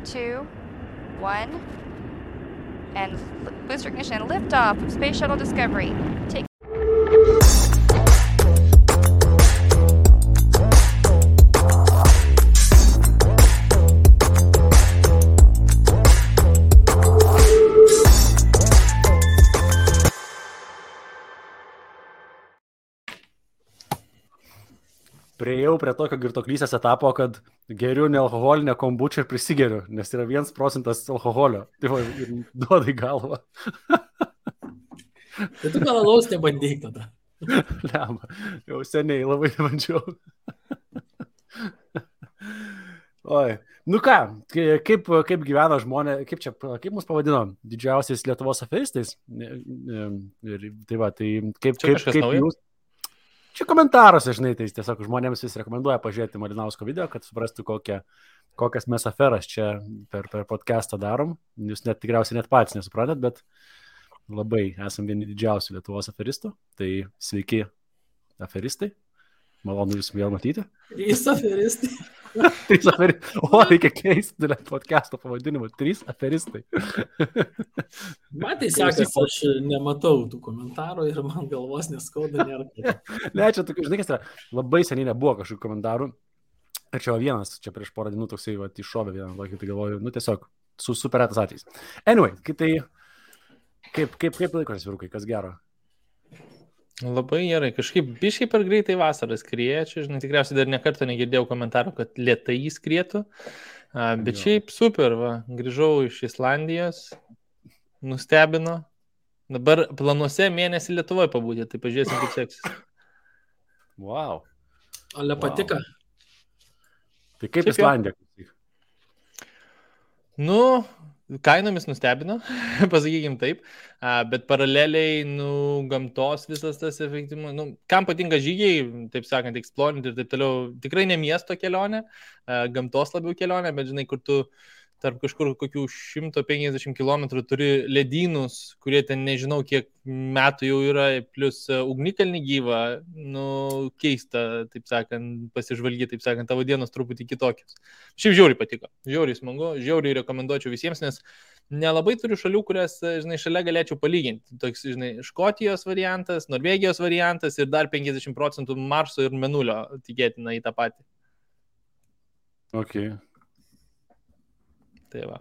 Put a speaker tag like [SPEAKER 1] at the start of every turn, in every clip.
[SPEAKER 1] 2, 1, and booster ignition, liftoff of Space Shuttle Discovery. Take
[SPEAKER 2] Priejau prie tokio girtoklysės etapo, kad geriu nealkoholinę kombučią ir prisigeriu, nes yra 1% alkoholio. Tai va, ir duoda į galvą.
[SPEAKER 3] Tai tu gal alaus nebandyk tada.
[SPEAKER 2] Lemba, jau seniai labai nebandžiau. Oi, nu ką, kaip gyvena žmonės, kaip mus pavadino didžiausiais Lietuvos aferistais? Ir tai va, tai kaip jūs... Čia komentaruose, žinai, tai tiesiog žmonėms vis rekomenduoja pažiūrėti Malinausko video, kad suprastų, kokias mes aferas čia per podcastą darom. Jūs tikriausiai net patys nesuprantat, bet labai esam vieni didžiausių Lietuvos aferistų. Tai sveiki aferistai. Malonu jūs vėl matyti.
[SPEAKER 3] 3 aferistai.
[SPEAKER 2] 3 aferistai. O, reikia keisti podcast'o pavadinimą. 3 aferistai.
[SPEAKER 3] Man tai sekasi, aš nematau tų komentarų ir man galvos neskauda nėra.
[SPEAKER 2] Ne, čia tokių, žinai, kas yra, labai seniai nebuvo kažkokių komentarų. Ir čia vienas, čia prieš porą dienų toksai iššovė vieną, tai galvoju, nu tiesiog super retas atvejis. Anyway, kaip laikotės vyrukai, kas gero?
[SPEAKER 4] Labai gerai, kažkaip biškai per greitai vasaras skrieja, čia, žinai, tikriausiai dar nekartą negirdėjau komentarų, kad lėtai skrietų, bet šiaip super, va, grįžau iš Islandijos, nustebino, dabar planuose mėnesį Lietuvoje pabūti, tai pažiūrėsim, kaip seksis.
[SPEAKER 2] Wow.
[SPEAKER 3] Ale patika.
[SPEAKER 2] Tai kaip Islandija?
[SPEAKER 4] Nu, kainomis nustebino, pasakykim taip, bet paraleliai, gamtos visas tas efektyvumas, kam patinka žygiai, taip sakant, explorinti ir taip toliau, tikrai ne miesto kelionė, gamtos labiau kelionė, bet žinai, kur tu tarp kažkur kokių 150 km turi ledynus, kurie ten nežinau kiek metų jau yra, plus ugnikalnį gyvą, keista, taip sakant, pasižvalgyti, taip sakant, tavo dienos truputį kitokios. Šiaip žiauriai patiko, žiauriai smagu, žiauriai rekomenduočiau visiems, nes nelabai turiu šalių, kurias, žinai, šalia galėčiau palyginti. Toks, žinai, Škotijos variantas, Norvegijos variantas ir dar 50% Marso ir Mėnulio tikėtina į tą patį.
[SPEAKER 2] Okay.
[SPEAKER 4] Tai va.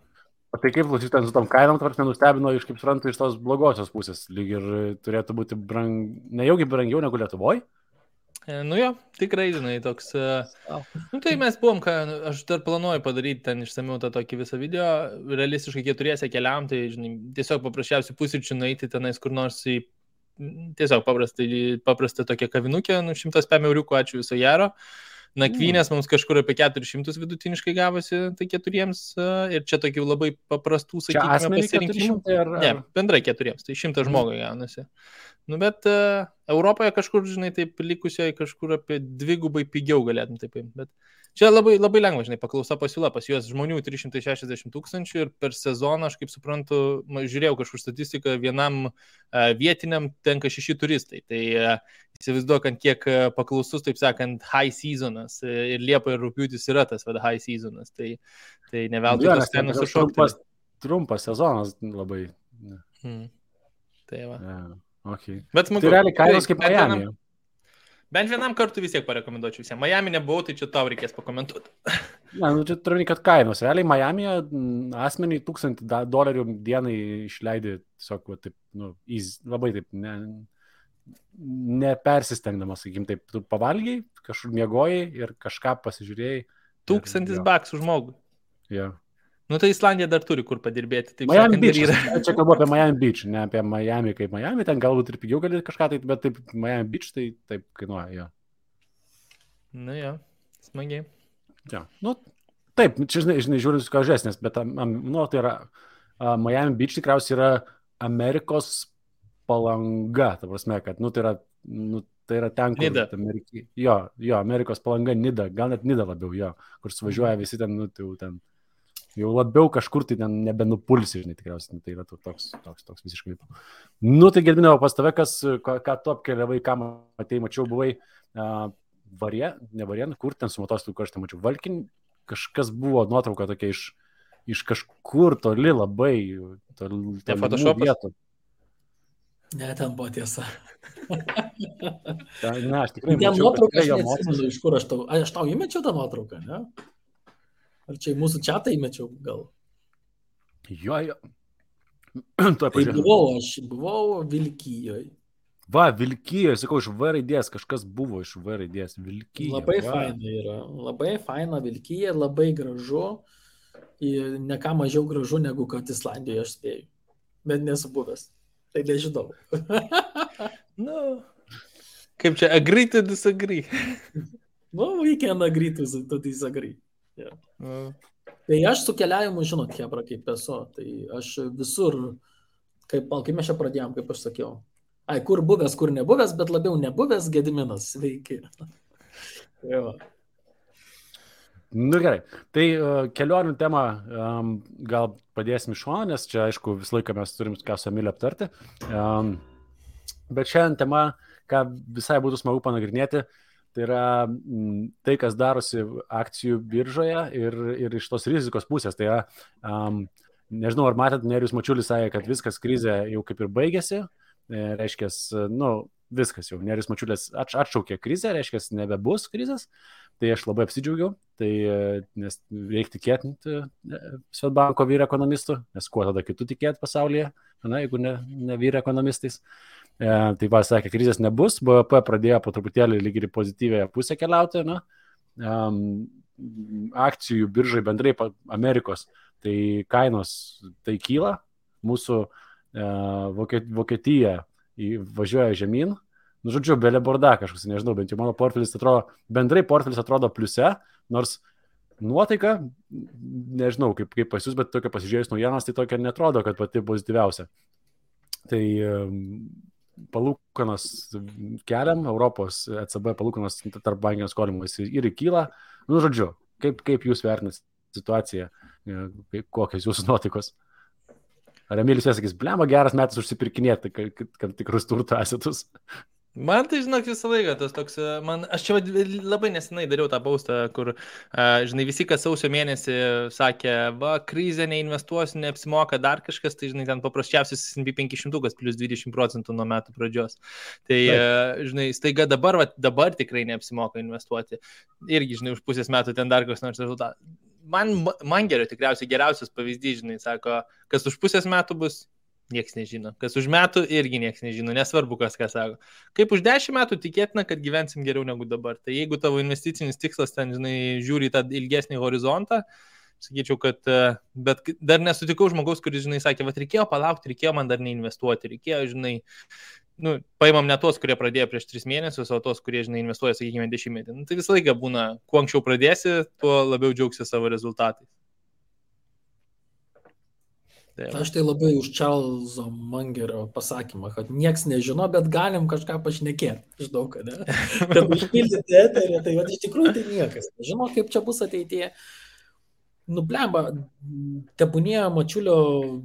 [SPEAKER 2] O tai kaip klausyt su tom kainom, tvarks nenustebino iš, kaip suprantu, iš tos blogosios pusės, lyg ir turėtų būti nejaugi brangiau negu Lietuvoje?
[SPEAKER 4] Nu jo, tikrai, žinai, toks... tai mes buvom, aš dar planuoju padaryti ten išsamiau tą tokį visą video, realistiškai 4 keliam, tai, žinai, tiesiog paprasčiausiai pusryčių nueiti tenais kur nors į tiesiog paprastą tokią kavinukę, 105 euriukų, ačiū viso gero. Nakvynės mums kažkur apie 400 vidutiniškai gavosi, tai 4 ir čia tokių labai paprastų, sakykime, pasirinkimų. Ne, bendrai 4, tai 100 žmogui gaunasi. Nu, bet Europoje kažkur, žinai, taip likusioje kažkur apie 2 pigiau galėtum taip paimti, bet čia labai, labai lengva, žinai, paklausa pasiūla, pas juos žmonių 360 000 ir per sezoną, aš kaip suprantu, žiūrėjau kažkur statistiką, vienam vietiniam tenka 6 turistai, tai įsivaizduokant, kiek paklausus, taip sakant, high seasonas ir Liepa ir Rugpjūtis yra tas high seasonas, tai ne veltui tos kainos sušokti.
[SPEAKER 2] Trumpas sezonas labai.
[SPEAKER 4] Tai va.
[SPEAKER 2] Okay.
[SPEAKER 4] Bet smagu.
[SPEAKER 2] Tai realiai kainos kaip Miami.
[SPEAKER 4] Bent vienam kartu vis tiek parekomenduočiau visiems. Miami nebuvau, tai čia tau reikės pakomentuoti.
[SPEAKER 2] Ne, čia turiu, kad kainos. Realiai Miami'e asmeniai $1000 dienai išleidė tiesiog taip, labai taip, nepersistengdamas, sakykim, taip, tu pavalgiai, kažkur miegojai ir kažką pasižiūrėjai.
[SPEAKER 4] $1000 už žmogų.
[SPEAKER 2] Jo.
[SPEAKER 4] Nu, tai Islandija dar turi kur padirbėti. Taip
[SPEAKER 2] Miami
[SPEAKER 4] sakant,
[SPEAKER 2] Beach, čia kalbu apie Miami Beach, ne apie Miami kaip Miami, ten galbūt ir pigiau gali kažką, tai, bet taip Miami Beach tai taip kainuoja, jo.
[SPEAKER 4] Nu jo, smagiai.
[SPEAKER 2] Ja. Nu, taip, čia žinai, žiūrint su kažesnės, bet tai yra Miami Beach tikriausiai yra Amerikos Palanga, ta prasme, kad, tai yra ten, kur...
[SPEAKER 4] Nida.
[SPEAKER 2] Jo, Amerikos Palanga, Nida, gal net Nida labiau, jo, kur suvažiuoja visi ten, ten jau labiau kažkur tai ten nebenupulsi, žinai, tikriausiai, tai yra toks visiškai. Nu, tai Gedminau, pas tave, ką tu apkeliavai, ką matei, mačiau, buvai ne Varien, kur ten su motociklu, kur aš ten mačiau, Valkin, kažkas buvo nuotrauka tokia iš iš kažkur toli labai, toli vietų.
[SPEAKER 3] Ne, ten buvo tiesa.
[SPEAKER 2] Ne, aš tikrai
[SPEAKER 3] ten
[SPEAKER 2] mačiau,
[SPEAKER 3] nuotrauką,
[SPEAKER 2] kad
[SPEAKER 3] aš neatsimenu, iš kur aš tau įmečiau tą nuotrauką, ne? Ar čia į mūsų čatą įmečiau gal?
[SPEAKER 2] Jo.
[SPEAKER 3] Tai buvau Vilkijoje.
[SPEAKER 2] Va, Vilkijoje, sakau, iš V raidės, kažkas buvo iš V raidės, Vilkijoje.
[SPEAKER 3] Labai faina yra, labai faina Vilkija, labai gražu ir ne ką mažiau gražu negu kad Islandijoje aš spėjau, bet nesu buvęs, tai nežinau.
[SPEAKER 4] Nu, kaip čia, agree to disagree.
[SPEAKER 3] We can agree to disagree. Yeah. Tai aš su keliavimu, žinot, hebra, kaip esu, tai aš visur, kaip mes čia pradėjom, kaip aš sakiau. Kur buvęs, kur nebuvęs, bet labiau nebuvęs Gediminas, sveiki.
[SPEAKER 2] Nu gerai, tai kelionių temą gal padėsim iš šono, nes čia, aišku, visą laiką mes turim ką su Emiliu aptarti. Bet šiandien tema, ką visai būtų smagu panagrinėti, tai yra tai, kas darosi akcijų biržoje ir iš tos rizikos pusės. Tai yra, nežinau, ar matėt, Nerijus Mačiulis sakė, kad viskas krizė jau kaip ir baigėsi. Reiškia, viskas jau, Nerijus Mačiulis atšaukė krizę, reiškia, nebebus krizės, tai aš labai apsidžiaugiau, nes reikia tikėti Swedbanko vyr ekonomistų, nes kuo tada kitų tikėti pasaulyje, jeigu ne vyr ekonomistais. Tai va, sakė, krizės nebus, BVP pradėjo po truputėlį lyg ir pozityvėje pusę keliauti, akcijų biržai bendrai Amerikos, tai kainos tai kyla, mūsų Vokietija važiuoja žemyn, žodžiu, belė borda kažkas, nežinau, bent jau mano portfelis atrodo pliuse, nors nuotaika, nežinau, kaip pas jūs, bet tokia pasižiūrėjus naujienas, tai tokia netrodo, kad pati pozityviausia. Tai palūkanos keliam, Europos ECB palūkanos tarp bankinio skolimo ir kyla, žodžiu, kaip jūs vertinate situaciją, kokios jūsų nuotaikos? Ar Emilis sakys, blema, geras metas užsipirkinėti, kad tikrus turto asetus?
[SPEAKER 4] Man tai, žinok, visą laiką tas toks, aš čia labai nesenai dariau tą paustą, kur, žinai, visi, kas sausio mėnesį sakė, va, krizė, neinvestuosiu, neapsimoka dar kažkas, tai, žinai, ten paprasčiausias S&P 500 plus 20% nuo metų pradžios. Tai, žinai, staiga dabar tikrai neapsimoka investuoti. Irgi, žinai, už pusės metų ten dar koks nors rezultatas. Man geriausias pavyzdys, žinai, sako, kas už pusės metų bus, nieks nežino. Kas už metų irgi nieks nežino, nesvarbu, kas ką sako. Kaip už 10 metų tikėtina, kad gyvensim geriau negu dabar. Tai jeigu tavo investicinis tikslas ten, žinai, žiūri tą ilgesnį horizontą, sakyčiau, kad, bet dar nesutikau žmogaus, kuris, žinai, sakė, va, reikėjo palaukti, reikėjo man dar neinvestuoti, reikėjo, žinai, paimam ne tos, kurie pradėjo prieš 3 mėnesius, o tos, kurie, žinai, investuoja, sakykime, 10 metų. Tai visą laiką būna, kuo anksčiau pradėsi, tuo labiau džiaugsi savo rezultatais.
[SPEAKER 3] Aš tai labai už Čarlzo Mangerio pasakymą, kad nieks nežino, bet galim kažką pašnekėti. Žinau, kad ne. Kad užpildyti eterį, tai iš tikrųjų tai niekas nežino, kaip čia bus ateityje. Blemba, tebūnie Mačiulio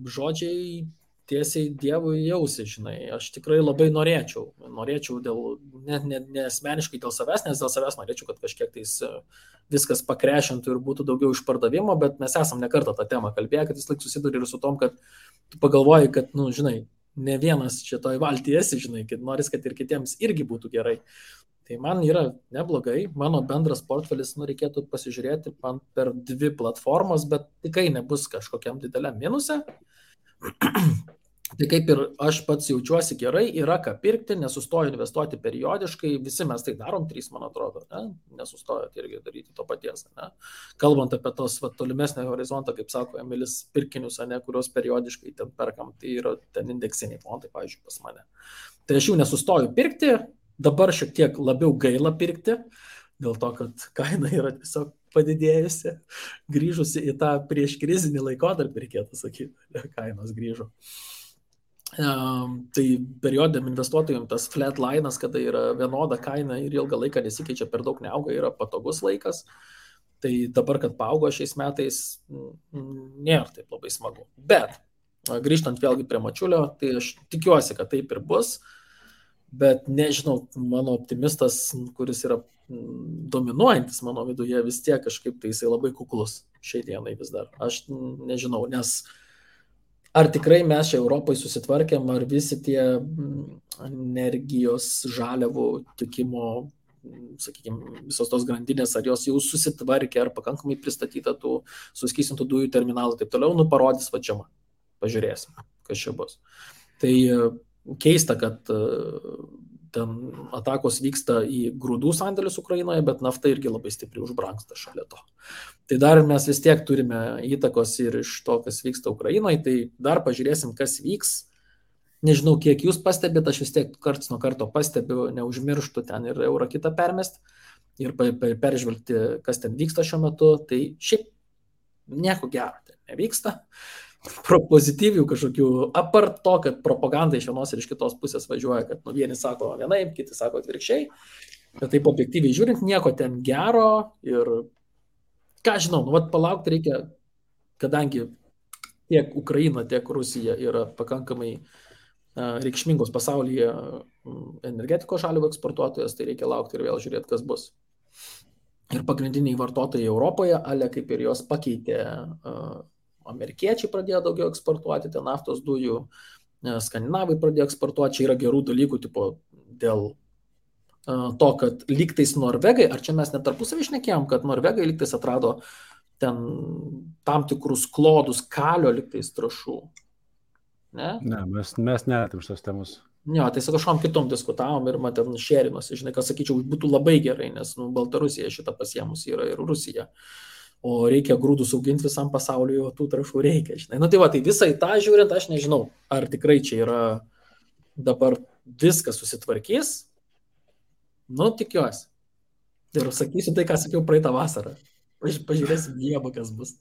[SPEAKER 3] žodžiai tiesiai Dievui jausi, žinai. Aš tikrai labai norėčiau dėl, ne asmeniškai dėl savęs, nes dėl savęs norėčiau, kad kažkiek tais viskas pakrešintų ir būtų daugiau išpardavimo, bet mes esam ne kartą tą temą kalbėję, kad vis laik susiduri ir su tom, kad tu pagalvoji, kad, žinai, ne vienas šitoj valtyje esi, žinai, kad noris, kad ir kitiems irgi būtų gerai. Tai man yra neblogai, mano bendras portfelis, reikėtų pasižiūrėti man per 2 platformas, bet tikrai nebus kažkokiam dideliam minuse. Tai kaip ir aš pats jaučiuosi gerai, yra ką pirkti, nesustoju investuoti periodiškai, visi mes tai darom, 3, man atrodo, nesustojot irgi daryti to paties. Ne? Kalbant apie tos tolimesnį horizontą, kaip sako Emilis, pirkinius, kuriuos periodiškai ten perkam, tai yra ten indeksiniai fondai, pavyzdžiui, pas mane. Tai aš jų nesustoju pirkti, dabar šiek tiek labiau gaila pirkti, dėl to, kad kaina yra tiesiog padidėjusi, grįžusi į tą prieš krizinį laikotarpį, reikėtų sakyti, kainos grįžo. Tai periodiniam investuotojams tas flat line'as, kada yra vienoda kaina ir ilgą laiką nesikeičia, per daug neauga, yra patogus laikas. Tai dabar, kad paaugo šiais metais, nėra taip labai smagu. Bet, grįžtant vėlgi prie Mačiulio, tai aš tikiuosi, kad taip ir bus. Bet nežinau, mano optimistas, kuris yra dominuojantis mano viduje, vis tiek kažkaip tai jisai labai kuklus šiai dienai vis dar. Aš nežinau, nes ar tikrai mes čia Europai susitvarkėm, ar visi tie energijos žaliavų tikimo, sakykime, visos tos grandinės, ar jos jau susitvarkė, ar pakankamai pristatyta tų suskystintų dujų terminalų, taip toliau, parodys vačiama. Pažiūrėsim, kas čia bus. Tai keista, kad ten atakos vyksta į grūdų sandėlius Ukrainoje, bet nafta irgi labai stipriai užbrangsta šalia to. Tai dar mes vis tiek turime įtakos ir iš to, kas vyksta Ukrainoje, tai dar pažiūrėsim, kas vyks. Nežinau, kiek jūs pastebėt, aš vis tiek karts nuo karto pastebiu, neužmirštų ten ir eurą kitą permest ir peržvelgti, kas ten vyksta šiuo metu. Tai šiaip nieko gero ten nevyksta. Pozityvių kažkokių, apart to, kad propaganda iš vienos ir iš kitos pusės važiuoja, kad vieni sako vienaip, kiti sako atvirkščiai, bet taip objektyviai žiūrint, nieko ten gero ir ką žinau, palaukti reikia, kadangi tiek Ukraina, tiek Rusija yra pakankamai reikšmingos pasaulyje energetikos žaliavų eksportuotojas, tai reikia laukti ir vėl žiūrėti, kas bus. Ir pagrindiniai vartotojai Europoje, ale kaip ir jos pakeitė, amerikiečiai pradėjo daugiau eksportuoti, ten naftos dujų, skandinavai pradėjo eksportuoti, čia yra gerų dalykų, tipo dėl to, kad lygtais Norvegai, ar čia mes net tarpusavį šnekėjom, kad Norvegai lygtais atrado ten tam tikrus klodus kalio lygtais trąšų. Ne,
[SPEAKER 2] mes netėm šios temos.
[SPEAKER 3] Jo, tai su kažkom kitom diskutavom ir man ten šėrinosi, žinai, kas sakyčiau, būtų labai gerai, nes Baltarusija šitą pasiemus yra ir Rusija. O reikia grūdus auginti visam pasauliu, tų trąšų reikia, žinai. Tai visai tą žiūrint, aš nežinau, ar tikrai čia yra dabar viskas susitvarkys. Tikiuosi. Ir sakysiu tai, ką sakiau praeitą vasarą. Pažiūrėsim Dievą, kas bus.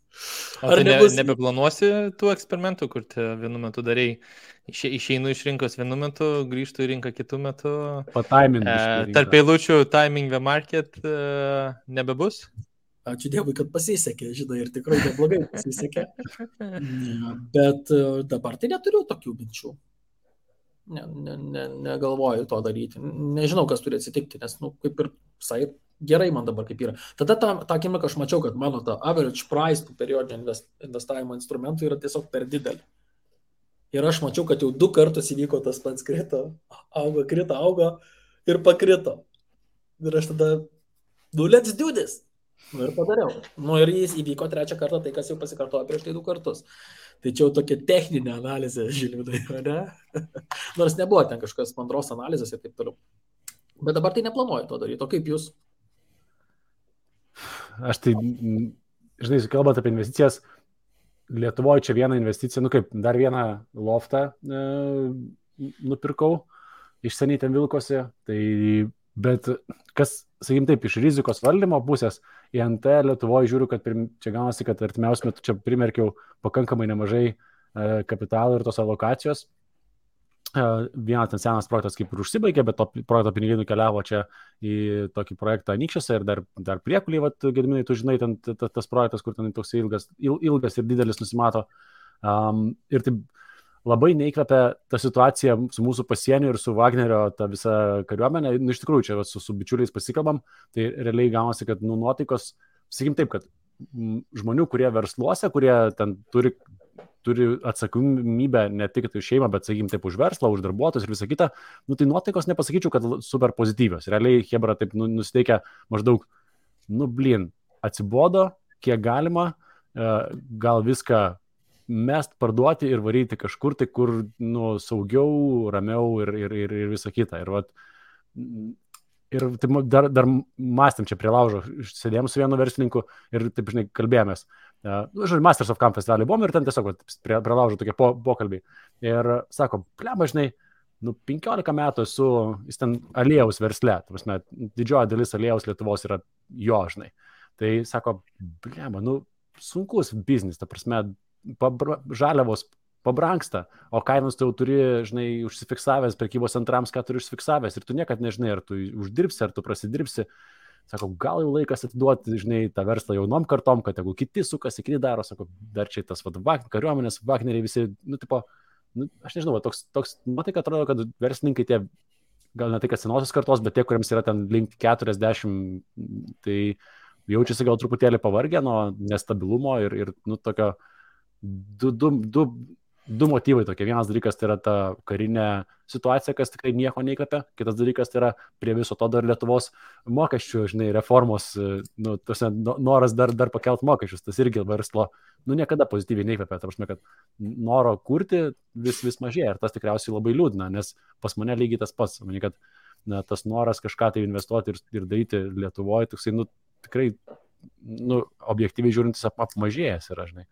[SPEAKER 4] Ar nebeplanuosi tų eksperimentų, kur vienu metu darai, išeinu iš rinkos vienu metu, grįžtu į rinką kitų metų. Tarp eilučių timing the market nebebus?
[SPEAKER 3] Ačiū Dievui, kad pasisekė, žinai, ir tikrai neblogai pasisekė. Bet dabar tai neturiu tokių minčių. Negalvoju to daryti. Nežinau, kas turi atsitikti, nes, kaip ir visai gerai man dabar kaip yra. Tada tą akimirką aš mačiau, kad mano ta average price tų periodinio investavimo instrumentų yra tiesiog per didelį. Ir aš mačiau, kad jau 2 kartus įvyko tas pats krito, augo ir pakrito. Ir aš tada, let's do this. Ir padariau. Ir jis įvyko 3 kartą, tai kas jau pasikartojo prieš tai 2 kartus. Tai čia jau tokia techninė analizė, Žilvidai, ne? Nors nebuvo ten kažkas mandros analizės ir taip toliau. Bet dabar tai neplanuoju to daryti. O kaip jūs?
[SPEAKER 2] Aš tai, žinai, kalbant apie investicijas, Lietuvoje čia vieną investiciją, dar vieną loftą nupirkau, iš seniai ten vilkosi, tai, bet kas, sakykim taip, iš rizikos valdymo pusės, į NT Lietuvoje žiūriu, kad čia gaunasi, kad artimiausiu metu čia primerkiau pakankamai nemažai kapitalo ir tos alokacijos. Vienas ten senas projektas kaip ir užsibaigė, bet to projekto pinigai nukeliavo čia į tokį projektą Anykščiuose ir dar Priekulį, Gediminai, tu žinai, ten tas projektas, kur ten toks ilgas ir didelis nusimato. Ir taip labai neįkvepia ta situacija su mūsų pasieniu ir su Wagnerio ta visa kariuomenė. Iš tikrųjų, čia su bičiuliais pasikalbam, tai realiai gaunasi, kad nuotaikos, sakykim taip, kad žmonių, kurie versluose, kurie ten turi atsakomybę ne tik už šeimą, bet, sakykim, taip už verslą, už darbuotojus ir visą kitą, tai nuotaikos nepasakyčiau, kad super pozityvios. Realiai Hebra taip nusiteikia maždaug, atsibodo, kiek galima, gal viską mest, parduoti ir varyti kažkur, tai kur saugiau, ramiau ir visą kitą. Ir taip, dar mąstėm čia prie laužo, sėdėjom su vienu verslininku ir taip, žinai, kalbėjomės. Masters of Camp festivalį buvom ir ten tiesiog prie laužo tokie pokalbiai. Ir sako, plema, žinai, 15 metų esu, jis ten aliejaus versle, didžioji dalis aliejaus Lietuvos yra jo, žinai. Tai sako, plema, sunkus biznis, ta prasme, žaliavos pabrangsta, o kainos tu jau turi, žinai, užsifiksavęs prekybos centrams, ką turi užsifiksavęs ir tu niekad nežinai, ar tu uždirbsi, ar tu prasidirbsi. Sako, gal jau laikas atiduoti, žinai, tą verslą jaunom kartom, kad jeigu kiti sukasi, kiti daro, sako, dar čia tas kariuomenės, Wagneriai visi, aš nežinau, toks nuotaika atrodo, kad verslininkai tie gal ne tai, kad senosios kartos, bet tie, kuriems yra ten link 40, tai jaučiasi gal truputėlį pavargę nuo nestabilumo ir nu, tokio du motyvai tokie. Vienas dalykas tai yra ta karinė situacija, kas tikrai nieko neįkvepia. Kitas dalykas tai yra prie viso to dar Lietuvos mokesčių, žinai, reformos, nu, noras dar pakelt mokesčius. Tas irgi verslo, nu, niekada pozityviai neįkvepia. Ta prasme, kad noro kurti vis mažėja. Ir tas tikriausiai labai liūdna, nes pas mane lygiai tas pats. Manau, kad tas noras kažką tai investuoti ir daryti Lietuvoje, nu, tikrai, nu, objektyviai žiūrintis apmažėjęs yra, žinai.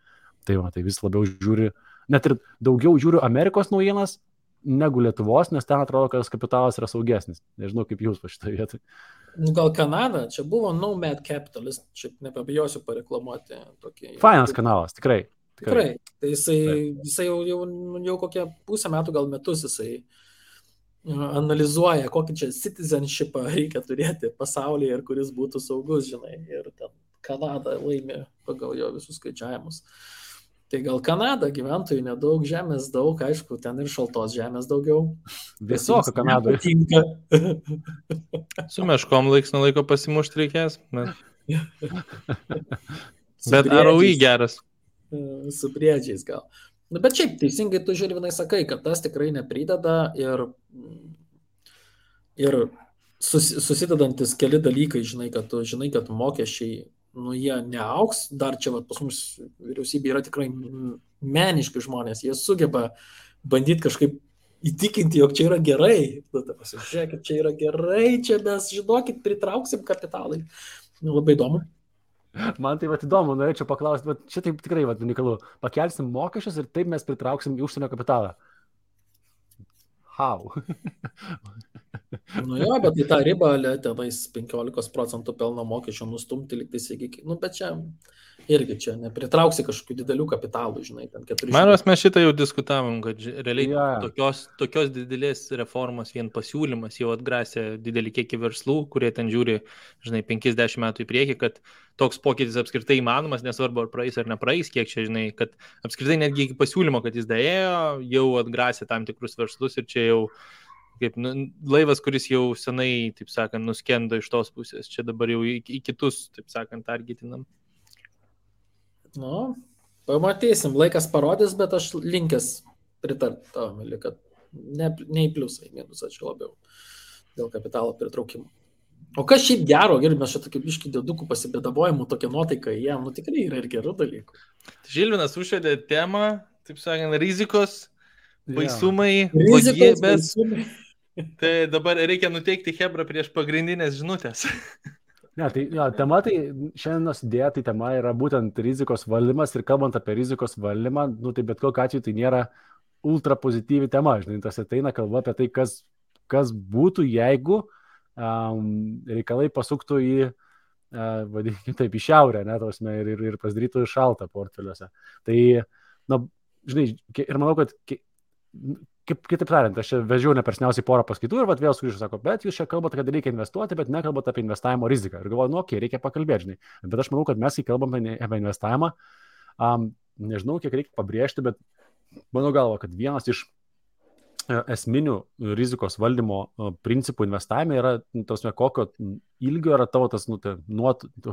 [SPEAKER 2] Tai vis labiau žiūri, net ir daugiau žiūriu Amerikos naujienas negu Lietuvos, nes ten atrodo, kad kapitalas yra saugesnis. Nežinau, kaip jūs po šitą vietą.
[SPEAKER 3] Nu, gal Kanada, čia buvo Nomad Capitalist, šiaip nepabijosiu pareklamuoti tokį.
[SPEAKER 2] Fainas kanalas, tikrai.
[SPEAKER 3] Tai jisai jau kokie pusę metų, gal metus jisai analizuoja, kokį čia citizenshipą reikia turėti pasaulyje ir kuris būtų saugus, žinai. Ir ten Kanada laimė pagal jo visus skaičiavimus. Tai gal Kanada, gyventojų nedaug, žemės daug, aišku, ten ir šaltos žemės daugiau.
[SPEAKER 2] Visoka Kanadoje.
[SPEAKER 4] Su meškom laiks nuo laiko pasimušti reikės. Bet ROI geras.
[SPEAKER 3] Su briedžiais gal. Nu, bet šiaip, teisingai tu Žilvinai sakai, kad tas tikrai neprideda ir susidedantis keli dalykai, žinai, kad mokesčiai, nu, jie neauks, dar čia pas mus vyriausybė yra tikrai meniški žmonės, jie sugeba bandyti kažkaip įtikinti, jog čia yra gerai, pasižiūrėkit, čia yra gerai, čia mes, žinokit, pritrauksim kapitalai. Nu, labai įdomu.
[SPEAKER 2] Man tai įdomu, norėčiau paklausti, bet čia taip tikrai unikalu, pakelsim mokesčius ir taip mes pritrauksim į užsienio kapitalą. How?
[SPEAKER 3] Nu jo, bet į tą ribą tenais 15% pelno mokesčio nustumti liktais iki, nu bet čia irgi čia nepritrauksi kažkokių didelių kapitalų, žinai, ten 400.
[SPEAKER 4] Manos, mes šitą jau diskutavom, kad realiai tokios didelės reformos vien pasiūlymas jau atgrasė didelį kiekį verslų, kurie ten žiūri, žinai, 50 metų į priekį, kad toks pokytis apskritai įmanomas, nesvarbu ar praeis ar nepraeis, kiek čia, žinai, kad apskritai netgi iki pasiūlymo, kad jis daėjo, jau atgrasė tam tikrus verslus ir čia jau kaip laivas, kuris jau senai, taip sakant, nuskendo iš tos pusės. Čia dabar jau į kitus, taip sakant, targetinam.
[SPEAKER 3] Nu, pamatysim, laikas parodys, bet aš linkęs pritarti tam, kad ne į pliusą, į minusą čia labiau dėl kapitalo pritraukimo. O kas šiaip gero, gerai, mes čia tokį biškį dėdukų pasibėdavojimų, tokia nuotaika jiem, nu tikrai yra ir gerų dalykų.
[SPEAKER 4] Žilvinas užvedė temą, taip sakant, rizikos, baisumai, blogybės. Tai dabar reikia nuteikti Hebrą prieš pagrindinės žinutės.
[SPEAKER 2] Ne, tai tema, tai šiandienos idėja, tai tema yra būtent rizikos valdymas ir kalbant apie rizikos valdymą, nu tai bet kokiu atveju tai nėra ultra pozityvi tema, žinai, tas ateina kalba apie tai, kas būtų, jeigu reikalai pasuktų į, vadinkime taip, į šiaurę, ne, tausme, ir pasidarytų šaltą portfeliuose. Tai, na, žinai, ir manau, kad kitaip tariant, aš čia vežiau nepersniausiai porą paskaitų ir vėl sugrįžu, sako, bet jūs čia kalbate, kad reikia investuoti, bet nekalbate apie investavimo riziką. Ir galvoju, nu, reikia pakalbėti, žinai. Bet aš manau, kad mes, kai kalbame apie investavimą, nežinau, kiek reikia pabrėžti, bet mano galva, kad vienas iš esminių rizikos valdymo principų investavime yra, tausme, kokio ilgio yra tavo tas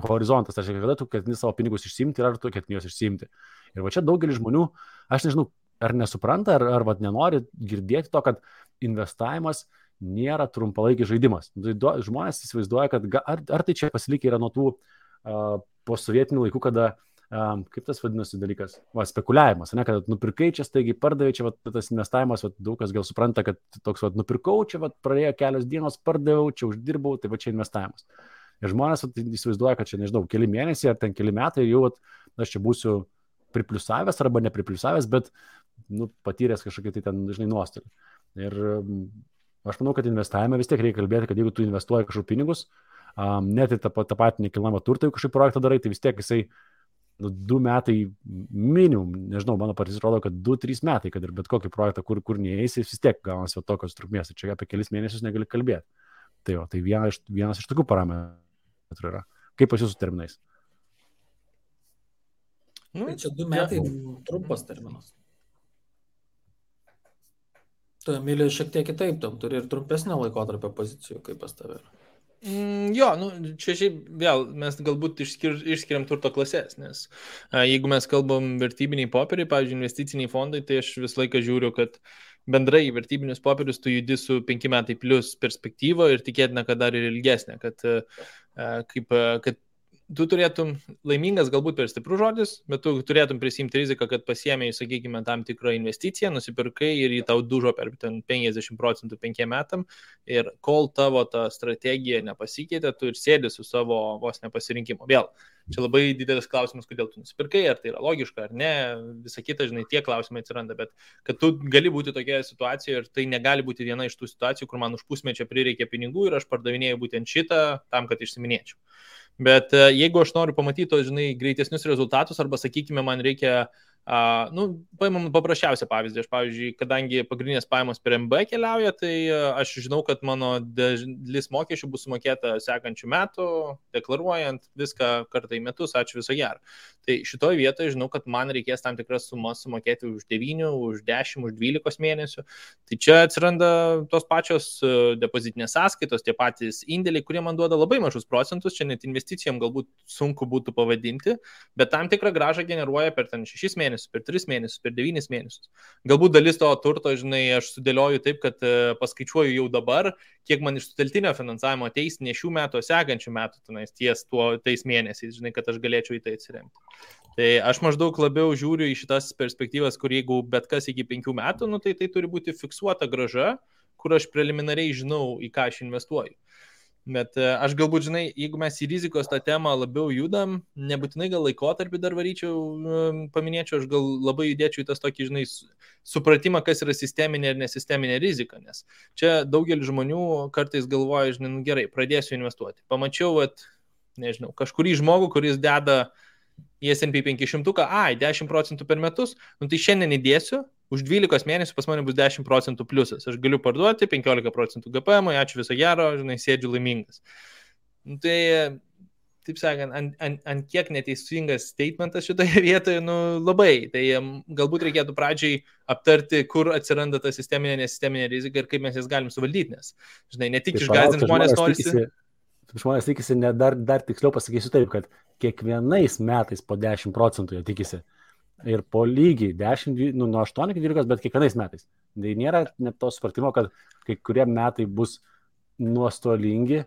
[SPEAKER 2] horizontas, tai kada tu ketini savo pinigus išsiimti ir ar tu ketini juos išsiimti. Ir va čia daugelis žmonių, aš nežinau, ar nesupranta, ar nenori girdėti to, kad investavimas nėra trumpalaikis žaidimas. Žmonės įsivaizduoja, kad ar tai čia pasilikę yra nuo tų posovietinių laikų, kada, kaip tas vadinasi dalykas, spekuliavimas, ne, kad nupirkai čia staigiai pardavė, čia tas investavimas, daug kas gal supranta, kad toks nupirkau, čia praėjo kelios dienos, pardaviau, čia uždirbau, tai va čia investavimas. Ir žmonės įsivaizduoja, kad čia, nežinau, keli mėnesiai ar ten keli metai jau aš čia būsiu pripliusavęs arba nepripliusavęs, bet patyręs kažkokį tai ten, žinai, nuostolį. Ir aš manau, kad investavime vis tiek reikia kalbėti, kad jeigu tu investuoji kažkokius pinigus, net į tą patį nekilnojamą turtą, jeigu kažkokį projektą darai, tai vis tiek jisai 2 metai minimum, nežinau, mano patys rodo, kad 2-3 metai, kad ir bet kokį projektą, kur neįeisi, vis tiek gaunasi tokios trukmės. Ir čia apie kelis mėnesius negali kalbėti. Tai vienas iš tokių parametrų yra. Kaip pas jūsų terminais?
[SPEAKER 3] Tai čia 2 metai trumpas terminas. Tu, Emilija, šiek tiek kitaip, tam turi ir trumpesnio laikotarpio pozicijų, kaip pas tave.
[SPEAKER 4] Jo, čia šiaip vėl mes galbūt išskiriam turto klasės, nes jeigu mes kalbam vertybiniai popieriai, pavyzdžiui, investiciniai fondai, tai aš visą laiką žiūriu, kad bendrai vertybinius popierius tu judi su 5 metai plus perspektyva ir tikėtina, kad dar ir ilgesnė, kad tu turėtum laimingas, galbūt per stiprus žodis, bet tu turėtum prisimti riziką, kad pasiėmėjai, sakykime, tam tikrą investiciją, nusipirkai ir jį tau dužo per 50% 5 metam ir kol tavo ta strategija nepasikeitė, tu ir sėdi su savo vos nepasirinkimu. Vėl, čia labai didelis klausimas, kodėl tu nusipirkai, ar tai yra logiška ar ne, visa kita, žinai, tie klausimai atsiranda, bet kad tu gali būti tokioje situacijoje ir tai negali būti viena iš tų situacijų, kur man už pusmečio prireikė pinigų ir aš pardavinėjau būtent šitą tam, kad išsiminėčiau. Bet jeigu aš noriu pamatyti tos, žinai, greitesnius rezultatus arba, sakykime, man reikia, paimam paprasčiausią pavyzdį. Aš, pavyzdžiui, kadangi pagrindinės pajamos per MB keliauja, tai aš žinau, kad mano dalis mokesčių bus sumokėta sekančių metų, deklaruojant viską kartą į metus, ačiū viso gero. Tai šitoje vietoje žinau, kad man reikės tam tikras sumas sumokėti už 9, už 10, už 12 mėnesių. Tai čia atsiranda tos pačios depozitinės sąskaitos, tie patys indėliai, kurie man duoda labai mažus procentus, čia net investicijom galbūt sunku būtų pavadinti, bet tam tikrą grąžą generuoja per 6 mėnesius, per 3 mėnesius, per 9 mėnesius. Galbūt dalis to turto, žinai, aš sudėlioju taip, kad paskaičiuoju jau dabar, kiek man iš suteltinio finansavimo ateis ne šių metų, o sekančių metų tais mėnesiais, žinai, kad aš galėčiau į tai atsiremti. Tai aš maždaug labiau žiūriu į šitas perspektyvas, kur jeigu bet kas iki 5 metų, tai turi būti fiksuota grąža, kur aš preliminariai žinau, į ką aš investuoju. Bet aš galbūt, žinai, jeigu mes į rizikos tą temą labiau judam, nebūtinai gal laikotarpį dar paminėčiau, aš gal labai judėčiau į tas tokį, žinai, supratimą, kas yra sisteminė ir nesisteminė rizika, nes čia daugelis žmonių kartais galvoja, žinai, gerai, pradėsiu investuoti. Pamačiau, nežinau, kažkurį žmogų, kuris deda į S&P 500, 10% per metus, tai šiandien įdėsiu, už 12 mėnesių pas mane bus 10% pliusas. Aš galiu parduoti 15% GPM, ačiū viso gero, žinai, sėdžiu laimingas. Tai, taip sakant, ant kiek neteisingas statementas šitoje vietoje, labai. Tai galbūt reikėtų pradžiai aptarti, kur atsiranda ta sisteminė, nesisteminė rizika ir kaip mes jas galim suvaldyti, nes, žinai, ne tik išgąsdinti žmonės norisi.
[SPEAKER 2] Žmonės tikisi, dar tiksliau pasakysiu taip, kad kiekvienais metais po 10% jie tikisi. Ir po lygiai 10, nuo 8 iki 12, bet kiekvienais metais. Tai nėra net to supratimo, kad kai kurie metai bus nuostolingi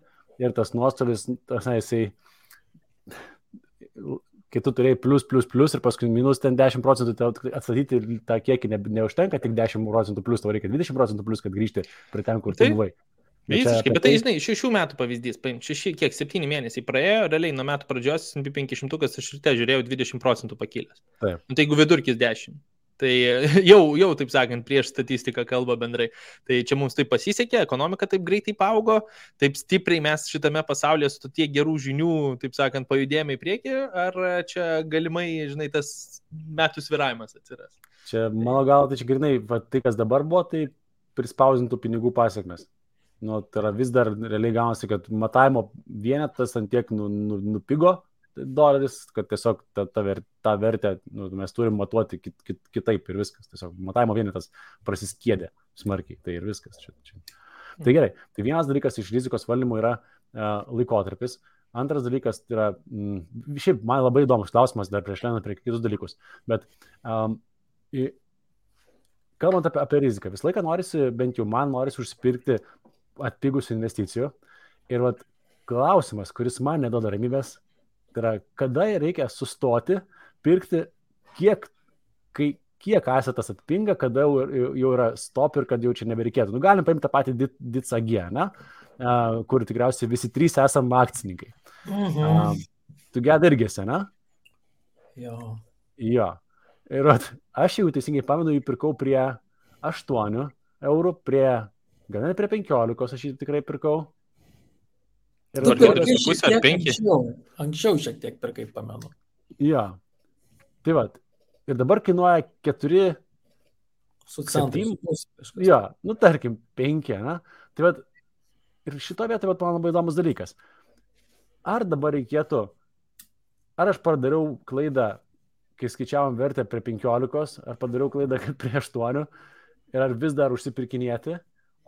[SPEAKER 2] ir tas nuostolis, jisai, kai tu turėjai plus ir paskui minus ten 10%, atstatyti tą kiekį neužtenka, tik 10% plus, tau reikia 20% plus, kad grįžti prie ten, kur tu buvai.
[SPEAKER 4] Visiškai, bet tai, žinai, 6 metų pavyzdys, 7 mėnesiai praėjo, realiai nuo metų pradžios S&P 500 aš ryte žiūrėjau 20% pakilęs.
[SPEAKER 2] Taip.
[SPEAKER 4] Tai jeigu vidurkis 10, tai jau, taip sakant, prieš statistiką kalba bendrai. Tai čia mums taip pasisekė, ekonomika taip greitai paaugo, taip stipriai mes šitame pasaulyje su tiek gerų žinių, taip sakant, pajudėjome į priekį, ar čia galimai, žinai, tas metų sviravimas atsiras?
[SPEAKER 2] Čia, mano galva, tai čia grinai, tai kas dabar buvo, tai prispausintų pinigų pasiekmes. Tai yra vis dar realiai gaunasi, kad matavimo vienetas ant tiek nupigo doleris, kad tiesiog tą vertę mes turim matuoti kitaip ir viskas. Tiesiog matavimo vienetas prasiskiedė smarkiai, tai ir viskas. Tai gerai, tai vienas dalykas iš rizikos valdymo yra laikotarpis. Antras dalykas yra, šiaip man labai įdomus klausimas dar prieš lendant prie kitus dalykus, bet kalbant apie riziką, visą laiką norisi, bent jau man norisi užsipirkti atpigusių investicijų. Ir klausimas, kuris man neduoda ramybės, tai yra, kada reikia sustoti, pirkti, kiek asetas atpinga, kada jau yra stop ir kad jau čia nebereikėtų. Galim paimti tą patį DITSAG, kur tikriausiai visi 3 esam akcininkai. Tu geda irgi esi, ne?
[SPEAKER 3] Jo.
[SPEAKER 2] Ir aš jau teisingai pamenu, jį pirkau prie 8 eurų, gal net prie 15, aš jį tikrai pirkau.
[SPEAKER 3] Ir tu pirkai šiek tiek anksčiau šiek tiek pirkai, pamenu.
[SPEAKER 2] Jo. Tai ir dabar kainuoja 4
[SPEAKER 3] su centais.
[SPEAKER 2] Jo, tarkim, 5, ne? Tai ir šito vietoje man labai įdomus dalykas. Ar dabar reikėtų, ar aš padariau klaidą, kai skaičiavom vertę prie 15, ar padariau klaidą prie 8, ir ar vis dar užsipirkinėti,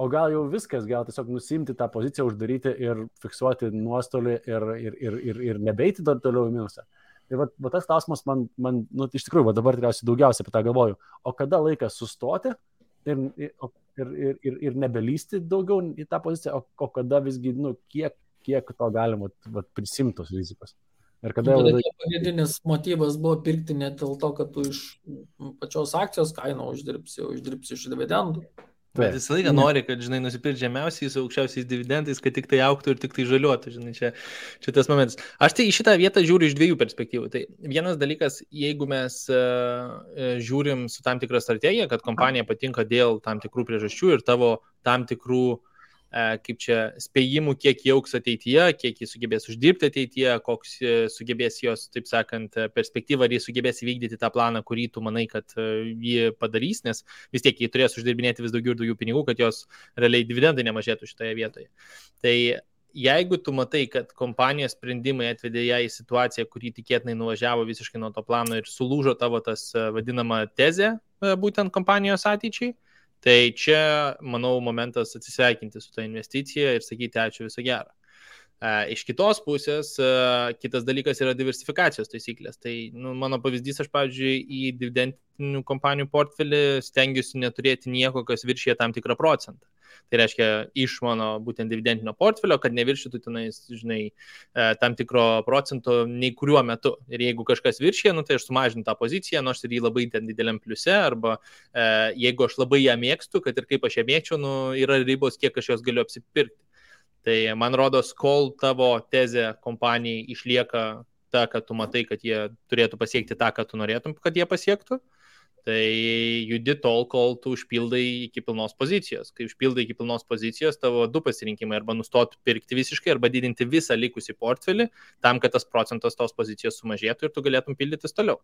[SPEAKER 2] o gal jau viskas, gal tiesiog nusimti tą poziciją, uždaryti ir fiksuoti nuostolį ir nebeiti dar toliau į minusą. Ir va tas klausimas man nu, iš tikrųjų, dabar tikriausiai daugiausiai apie tą galvoju, o kada laikas sustoti ir nebelysti daugiau į tą poziciją, o kada visgi, nu, kiek to galima prisimtos rizikos. Ir kada
[SPEAKER 3] pagrindinis motyvas buvo pirkti ne dėl to, kad tu iš pačios akcijos kainą uždirbsi iš dividendų.
[SPEAKER 4] Bet visą laiką nori, kad, žinai, nusipirkti žemiausiais, aukščiausiais dividendais, kad tik tai augtų ir tik tai žaliuotų, žinai, čia tas momentas. Aš tai į šitą vietą žiūriu iš dviejų perspektyvų. Tai vienas dalykas, jeigu mes žiūrim su tam tikra strategija, kad kompanija patinka dėl tam tikrų priežasčių ir tavo tam tikrų kaip čia spėjimų, kiek jie augs ateityje, kiek jie sugebės uždirbti ateityje, koks sugebės jos, taip sakant, perspektyva, ar jie sugebės įvykdyti tą planą, kurį tu manai, kad jie padarys, nes vis tiek jie turės uždirbinėti vis daugiau ir daugiau pinigų, kad jos realiai dividendai nemažėtų šitoje vietoje. Tai jeigu tu matai, kad kompanijos sprendimai atvedė ją į situaciją, kurį tikėtinai nuvažiavo visiškai nuo to plano ir sulūžo tavo tas vadinama tezė būtent kompanijos ateičiai, tai čia, manau, momentas atsisveikinti su tą investiciją ir sakyti ačiū, viso gero. Iš kitos pusės, kitas dalykas yra diversifikacijos taisyklės. Tai mano pavyzdys, aš, pavyzdžiui, į dividendinių kompanijų portfelį stengiuosi neturėti nieko, kas viršyje tam tikrą procentą. Tai reiškia iš mano būtent dividendinio portfelio, kad neviršytų tenais, žinai, tam tikro procento nei kuriuo metu. Ir jeigu kažkas viršyje, tai aš sumažinu tą poziciją, nors ir jį labai ten dideliam pliuse, arba jeigu aš labai ją mėgstu, kad ir kaip aš ją mėgčiau, yra ribos, kiek aš jos galiu apsipirkti. Tai man rodos, kol tavo tezė kompanijai išlieka ta, kad tu matai, kad jie turėtų pasiekti tą, ką tu norėtum, kad jie pasiektų, tai judi tol, kol tu užpildai iki pilnos pozicijos. Kai užpildai iki pilnos pozicijos, tavo du pasirinkimai arba nustoti pirkti visiškai, arba didinti visą likusį portfelį, tam, kad tas procentas tos pozicijos sumažėtų ir tu galėtum pildytis toliau.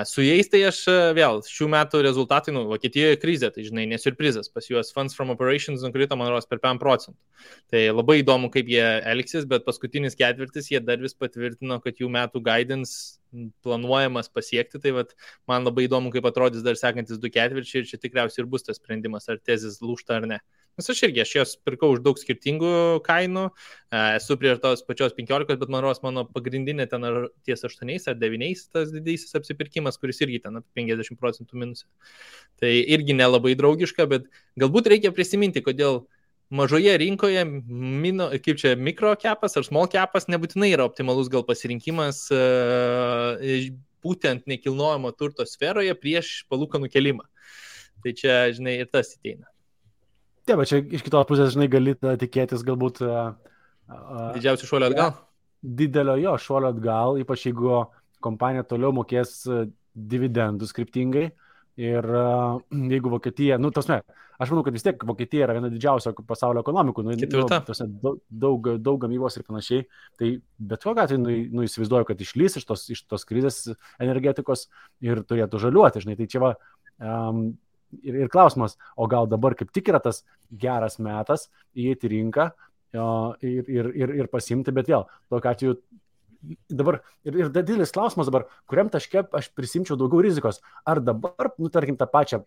[SPEAKER 4] Su jais tai aš vėl, šių metų rezultatai, Vokietijoje krizė, tai žinai, nesurprizas, pas juos funds from operations nukrito, man rodos, per 5%. Tai labai įdomu, kaip jie elgsis, bet paskutinis ketvirtis jie dar vis patvirtino, kad jų metų guidance planuojamas pasiekti, tai man labai įdomu, kaip atrodys dar sekantis 2 ketvirčiai ir čia tikriausiai ir bus tas sprendimas, ar tezis lūžta ar ne. Nes aš jos pirkau už daug skirtingų kainų, esu prie tos pačios 15, bet man rodos mano pagrindinė ten ar ties 8 ar 9 tas didysis apsipirkimas, kuris irgi ten 50% minusė. Tai irgi nelabai draugiška, bet galbūt reikia prisiminti, kodėl mažoje rinkoje kaip čia mikro kepas ar small kepas nebūtinai yra optimalus gal pasirinkimas būtent nekilnojamo turto sferoje prieš palūkanų kelimą. Tai čia, žinai, ir tas ateina.
[SPEAKER 2] Taip, bet čia iš kitos pusės, žinai, gali tikėtis galbūt
[SPEAKER 4] didžiausių šuolio atgal.
[SPEAKER 2] Didelio jo šuolio atgal, ypač jeigu kompanija toliau mokės dividendus kryptingai. Ir jeigu Vokietija, aš manau, kad vis tiek Vokietija yra viena didžiausia pasaulio ekonomikų, daug gamybos ir panašiai, tai bet kokiu atveju įsivaizduoju, kad išlys iš tos krizės energetikos ir turėtų žaliuoti, žinai, tai čia va, ir klausimas, o gal dabar kaip tik yra tas geras metas įeiti į rinką ir pasimti, bet vėl, tokiu atveju dabar, ir didelis klausimas dabar, kuriam taške aš prisimčiau daugiau rizikos, ar dabar, tarkim, tą pačią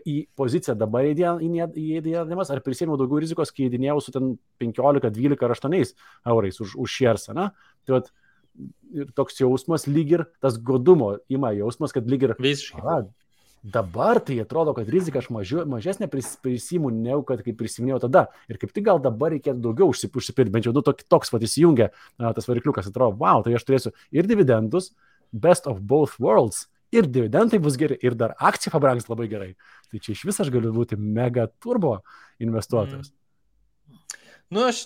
[SPEAKER 2] į poziciją dabar įdėdamas, ar prisėmiau daugiau rizikos, kai įdinėjau su ten 15, 12 ar 8 eurais už šiersą, na? Tai ir toks jausmas lyg ir tas godumo ima jausmas, kad lyg ir
[SPEAKER 4] visiškai.
[SPEAKER 2] Dabar tai atrodo, kad rizika aš mažesnė prisimu, negu kad kaip prisiminėjau tada. Ir kaip tik gal dabar reikėtų daugiau užsipirkti, bent jau toks įsijungia tas varikliukas, atrodo, wow, tai aš turėsiu ir dividendus, best of both worlds, ir dividendai bus geri, ir dar akcija pabrangs labai gerai. Tai čia iš vis aš galiu būti mega turbo investuotojas.
[SPEAKER 4] Aš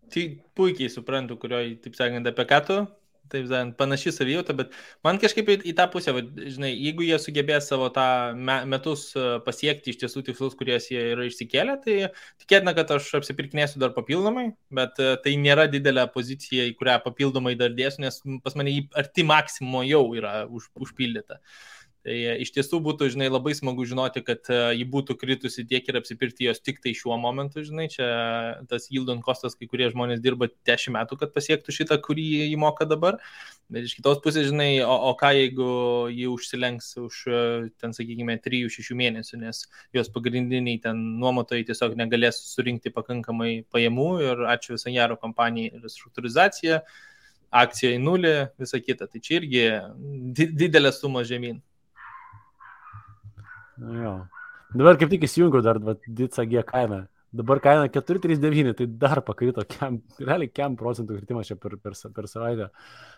[SPEAKER 4] tai puikiai suprantu, kurioje, taip sakant, apie ką tu. Taip, panaši savijauta, bet man kažkaip į tą pusę, žinai, jeigu jie sugebės savo tą metus pasiekti iš tiesų tikslus, kuriuos jie yra išsikėlę, tai tikėtina, kad aš apsipirkinėsiu dar papildomai, bet tai nėra didelė pozicija, į kurią papildomai dar dėsiu, nes pas mane arti maksimumo jau yra užpildyta. Tai iš tiesų būtų, žinai, labai smagu žinoti, kad ji būtų kritusi tiek ir apsipirkti jos tik tai šiuo momentu, žinai, čia tas yield on costas, kai kurie žmonės dirba 10 metų, kad pasiektų šitą, kurį jį moka dabar. Bet iš kitos pusės, žinai, o ką jeigu jį užsilenks už, ten, sakykime, 3-6 mėnesių, nes jos pagrindiniai ten nuomotojai tiesiog negalės surinkti pakankamai pajamų ir ačiū visą gero kompanijai restruktūrizacija, akcija į nulį, visa kita. Tai čia irgi didelė suma žemyn.
[SPEAKER 2] Jo. Dabar kaip tik įsijungiau dar Dica G kainą. Dabar kaina 4,39, tai dar pakrito, realiai 1 procentų kritimas čia per savaitę.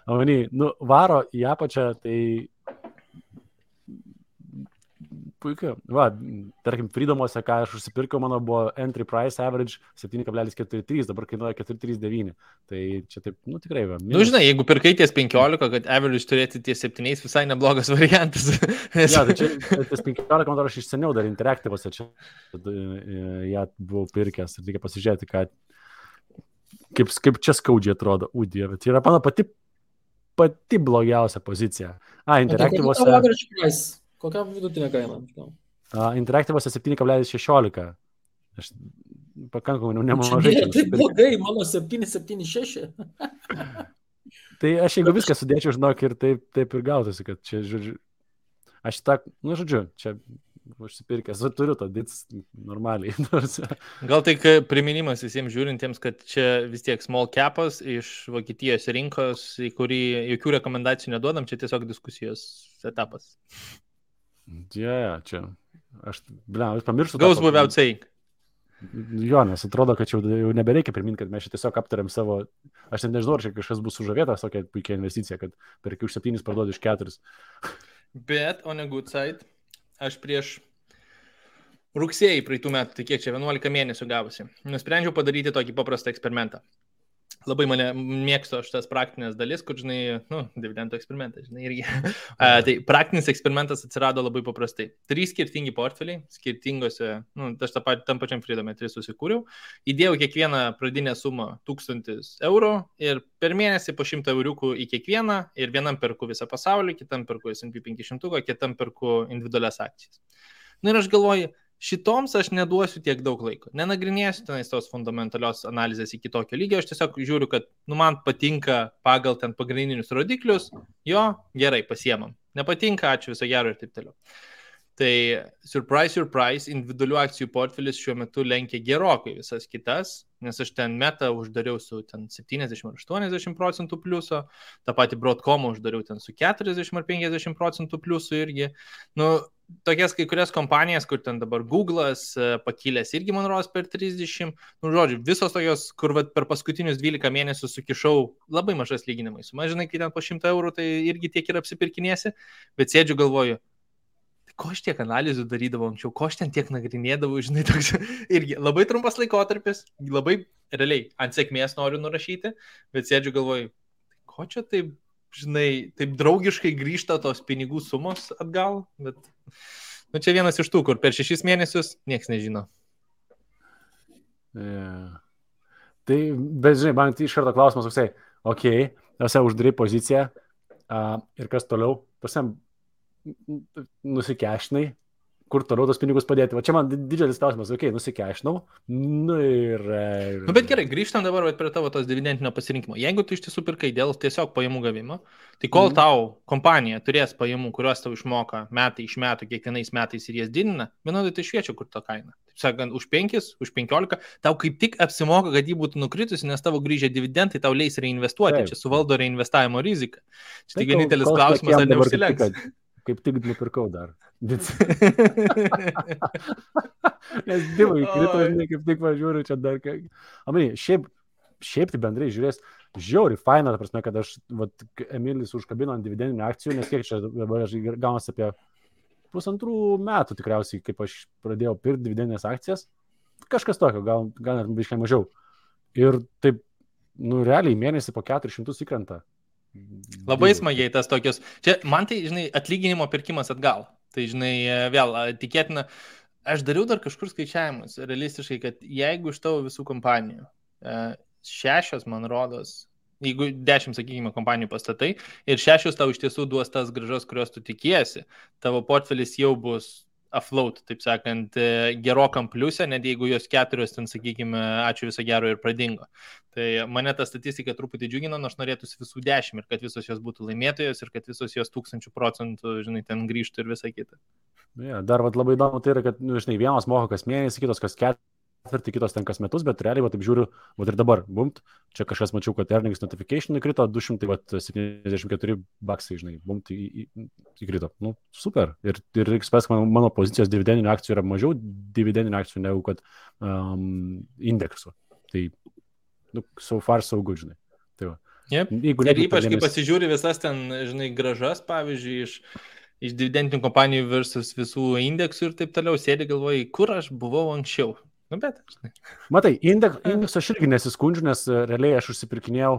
[SPEAKER 2] Amany, varo į apačią, tai puikiai. Va, tarkim, Freedom'ose, ką aš užsipirkiau, mano buvo entry price average 7,43, dabar kainuoja 4,39. Tai čia taip, tikrai va.
[SPEAKER 4] Žinai, jeigu pirkai ties 15, kad average turėti ties 7, visai neblogas variantas.
[SPEAKER 2] Ja, tai čia ties 15, man aš iš seniau dar Interactive'ose čia ją buvau pirkęs ir reikia pasižiūrėti, kaip čia skaudžiai atrodo. Dieve, tai yra mano pati blogiausia pozicija. Interactive'ose...
[SPEAKER 3] Kokia vidutinė kaina?
[SPEAKER 2] Interactive'ose 7,16. Aš pakankamai nemažai.
[SPEAKER 3] Tai blogai, mano 7,76.
[SPEAKER 2] Tai aš jeigu viską sudėčiau, žinok, ir taip ir gautųsi, kad čia, žodžiu, aš čia užsipirkęs, turiu to dits normaliai.
[SPEAKER 4] Gal tai priminimas visiems žiūrintiems, kad čia vis tiek small capas iš Vokietijos rinkos, į kurį jokių rekomendacijų neduodam, čia tiesiog diskusijos etapas.
[SPEAKER 2] Čia. Aš pamirštu.
[SPEAKER 4] Goes without saying.
[SPEAKER 2] Jo, nes atrodo, kad jau nebereikia priminti, kad mes čia tiesiog aptariam savo... Aš net nežinau, ar čia kažkas bus sužavėtas tokia puikia investicija, kad perki už 7 parduodi už 4.
[SPEAKER 4] Bet, on a good side, aš prieš rugsėjį praeitų metų, tai kiek čia 11 mėnesių gavosi, nusprendžiau padaryti tokį paprastą eksperimentą. Labai mane mėgstu aš tas praktinės dalis, kur, žinai, dividendų eksperimentas, žinai, irgi. Tai praktinis eksperimentas atsirado labai paprastai. 3 skirtingi portfeliai, skirtingose, aš tam pačiam Freedom'e 3 susikūriau, įdėjau kiekvieną pradinę sumą 1000 eurų ir per mėnesį po 100 euriukų į kiekvieną ir vienam perku visą pasaulį, kitam perku S&P 500, kitam perku individualias akcijas. Ir aš galvoju, šitoms aš neduosiu tiek daug laiko. Nenagrinėsiu tenais tos fundamentalios analizės iki tokio lygio, aš tiesiog žiūriu, kad man patinka pagal ten pagrindinius rodiklius, jo, gerai, pasiemam. Nepatinka, ačiū, viso gero ir taip toliau. Tai surprise, individualių akcijų portfelis šiuo metu lenkia gerokai visas kitas, nes aš ten metą uždariau su ten 70-80% pliuso, tą patį Broadcomą uždariau ten su 40-50% pliusu irgi. Tokias kai kurias kompanijas, kur ten dabar Google'as pakilęs irgi, man rodos, per 30. Žodžiu, visos tokios, kur per paskutinius 12 mėnesių sukišau labai mažas lyginimai. Žinai, kai ten po 100 eurų, tai irgi tiek ir apsipirkinėsi, bet sėdžiu galvoju, ko aš tiek analizų darydavau anksčiau, ko aš ten tiek nagrinėdavau, žinai, toks irgi labai trumpas laikotarpis, labai realiai ant sėkmės noriu nurašyti, bet sėdžiu galvoju, ko čia taip, žinai, taip draugiškai grįžta tos pinigų sumos atgal, bet čia vienas iš tų, kur per 6 mėnesius nieks nežino.
[SPEAKER 2] Yeah. Tai, bet žinai, man iš karto klausimas toksai, tose uždarai poziciją ir kas toliau, nusikešinai, kur toliau tos pinigus padėti. Va čia man didžiulis klausimas, nusikešinau.
[SPEAKER 4] Bet gerai, grįžtam dabar prie tavo tos dividendinio pasirinkimo. Jeigu tu iš tiesų pirkai dėl tiesiog pajamų gavimo, tai kol tau kompanija turės pajamų, kuriuos tau išmoka metai iš metų, kiekvienais metais ir jas didina, vienodai tai šviečia, kur ta kaina. Taip sakant, už 5, už 15, tau kaip tik apsimoka, kad jį būtų nukritusi, nes tavo grįžę dividendai tau leis reinvestuoti. Taip. Čia suvaldo reinvestavimo riziką. Čia tik vienintelis klausimas, ar neužsilenks.
[SPEAKER 2] Kaip tik nupirkau dar. Nes divai krito, kaip tik važiuoju čia dar. Šiaip tai bendrai žiūrės, žiauri faina, ta prasme, kad aš, Emilis užkabino ant dividendinių akcijų, nes kiek čia dabar aš gaunasi apie 1,5 metų tikriausiai, kaip aš pradėjau pirkti dividendinės akcijas. Kažkas tokio, gal net biškai mažiau. Ir taip, realiai mėnesį po 400 įkrenta.
[SPEAKER 4] Labai smagiai tas tokios. Čia man tai, žinai, atlyginimo pirkimas atgal. Tai, žinai, vėl tikėtina, aš dariau dar kažkur skaičiavimus, realistiškai, kad jeigu iš tavo visų kompanijų 6, man rodos, jeigu 10, sakykime, kompanijų pastatai ir 6 tau iš tiesų duos tas grąžos, kurios tu tikiesi, tavo portfelis jau bus afloat, taip sakant, gerokam pliusė, net jeigu jos 4 ten, sakykime, ačiū viso gero ir pradingo. Tai mane ta statistika truputį džiugina, nors norėtųsi visų 10 ir kad visos jos būtų laimėtojos ir kad visos jos 1000%, žinai, ten grįžtų ir visa kita.
[SPEAKER 2] Ja, dar labai įdomu tai yra, kad, žinai, vienos moka kas mėnesį, kitos kas ketvirtį, kitos ten kas metus, bet realiai, taip žiūriu, ir dabar, bumt, čia kažkas mačiau, kad earnings notification įkrito, 274 baksai, žinai, bumt įkrito. Nu, super. Ir XPS mano pozicijos dividendinių akcijų yra mažiau dividendinių akcijų negu kad indeksų. Tai, nu, so far so good, žinai. Tai va.
[SPEAKER 4] Yep. Ir ypač, kai pasižiūri visas ten, žinai, grąžas, pavyzdžiui, iš dividendinių kompanijų versus visų indeksų ir taip toliau, sėdi galvoji, kur aš buvau anksčiau. Nu, bet, žinai. Matai,
[SPEAKER 2] indeksą aš irgi nesiskundžiu, nes realiai aš užsipirkinėjau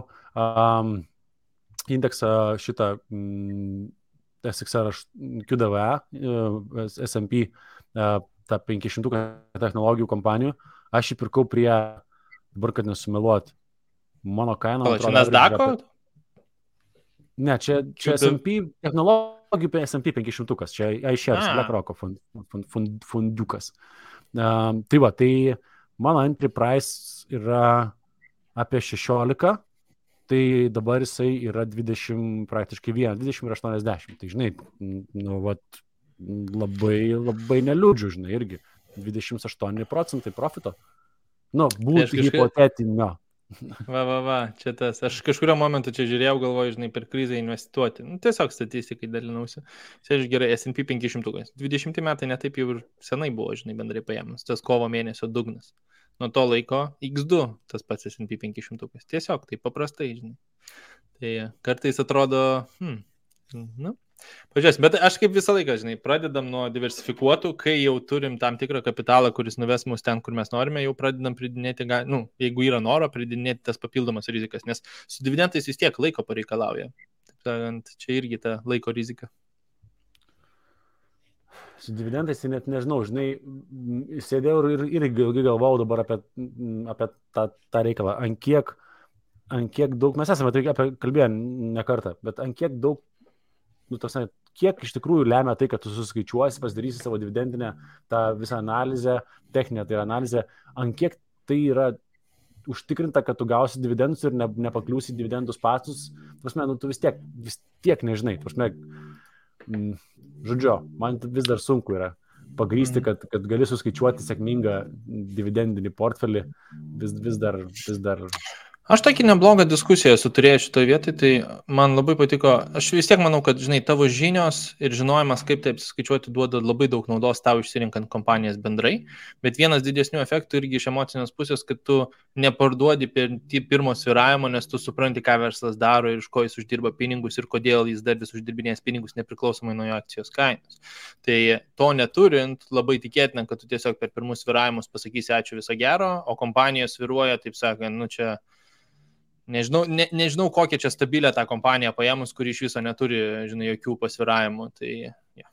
[SPEAKER 2] indeksą šitą SXR QDVA, S&P, tą 500 technologijų kompanijų. Aš jį pirkau prie, dabar kad nesumeluot, mano kaina.
[SPEAKER 4] O, čia Nasdaq'o?
[SPEAKER 2] Ne, čia S&P technologijų S&P 500, čia iShares, BlackRock'o fondiukas. Tai va, tai mano entry price yra apie 16, tai dabar jisai yra 20, praktiškai 20 ir 80. Tai žinai, nu, vat, labai neliūdžiu, žinai, irgi 28% profito. Nu, būtų hipotetinio.
[SPEAKER 4] Va, čia tas. Aš kažkurio momentu čia žiūrėjau, galvoju, žinai, per krizę investuoti. Nu, tiesiog statistikai dalinausi. Aš gerai, S&P 500. 20 metai netaip jau ir senai buvo, žinai, bendrai paėmus. Tas kovo mėnesio dugnas. Nuo to laiko X2 tas pats S&P 500. Tiesiog, tai paprastai, žinai. Tai kartais atrodo, nu, pažiūrės, bet aš kaip visą laiką, žinai, pradedam nuo diversifikuotų, kai jau turim tam tikrą kapitalą, kuris nuves mus ten, kur mes norime, jau pradedam pridinėti, jeigu yra noro, pridinėti tas papildomas rizikas, nes su dividendais vis tiek laiko pareikalauja. Taip sakant, čia irgi ta laiko rizika.
[SPEAKER 2] Su dividendais net nežinau, žinai, sėdėjau ir ilgai galvojau dabar apie tą reikalą, ant kiek daug, mes esame tai apie kalbėję ne kartą, bet ant kiek daug, nu, tasne, kiek iš tikrųjų lemia tai, kad tu suskaičiuosi, pasidarysi savo dividendinę tą visą analizę, techninę tai analizę, ant kiek tai yra užtikrinta, kad tu gausi dividendus ir nepakliūsi dividendus pasus, prasme, nu, tu vis tiek nežinai, prasme, žodžiu, man vis dar sunku yra pagrįsti, kad gali suskaičiuoti sėkmingą dividendinį portfelį, vis dar.
[SPEAKER 4] Aš tokį neblogą diskusiją turėjau šitoje vietoje, tai man labai patiko, aš vis tiek manau, kad, žinai, tavo žinios ir žinojimas, kaip taip skaičiuoti, duoda labai daug naudos tau išsirinkant kompanijas bendrai, bet vienas didesnių efektų irgi iš emocinės pusės, kad tu neparduodi per pirmo svyravimo, nes tu supranti, ką verslas daro ir iš ko jis uždirba pinigus ir kodėl jis dar vis uždirbinės pinigus nepriklausomai nuo jo akcijos kainos. Tai to neturint, labai tikėtina, kad tu tiesiog per pirmus svyravimus pasakysi ačiū viso gero, o kompanijos svyruoja, taip sakant, nu čia Nežinau, kokią čia stabilę tą kompaniją paėmus, kuri iš viso neturi, žinai, jokių pasviravimų. Tai, ja.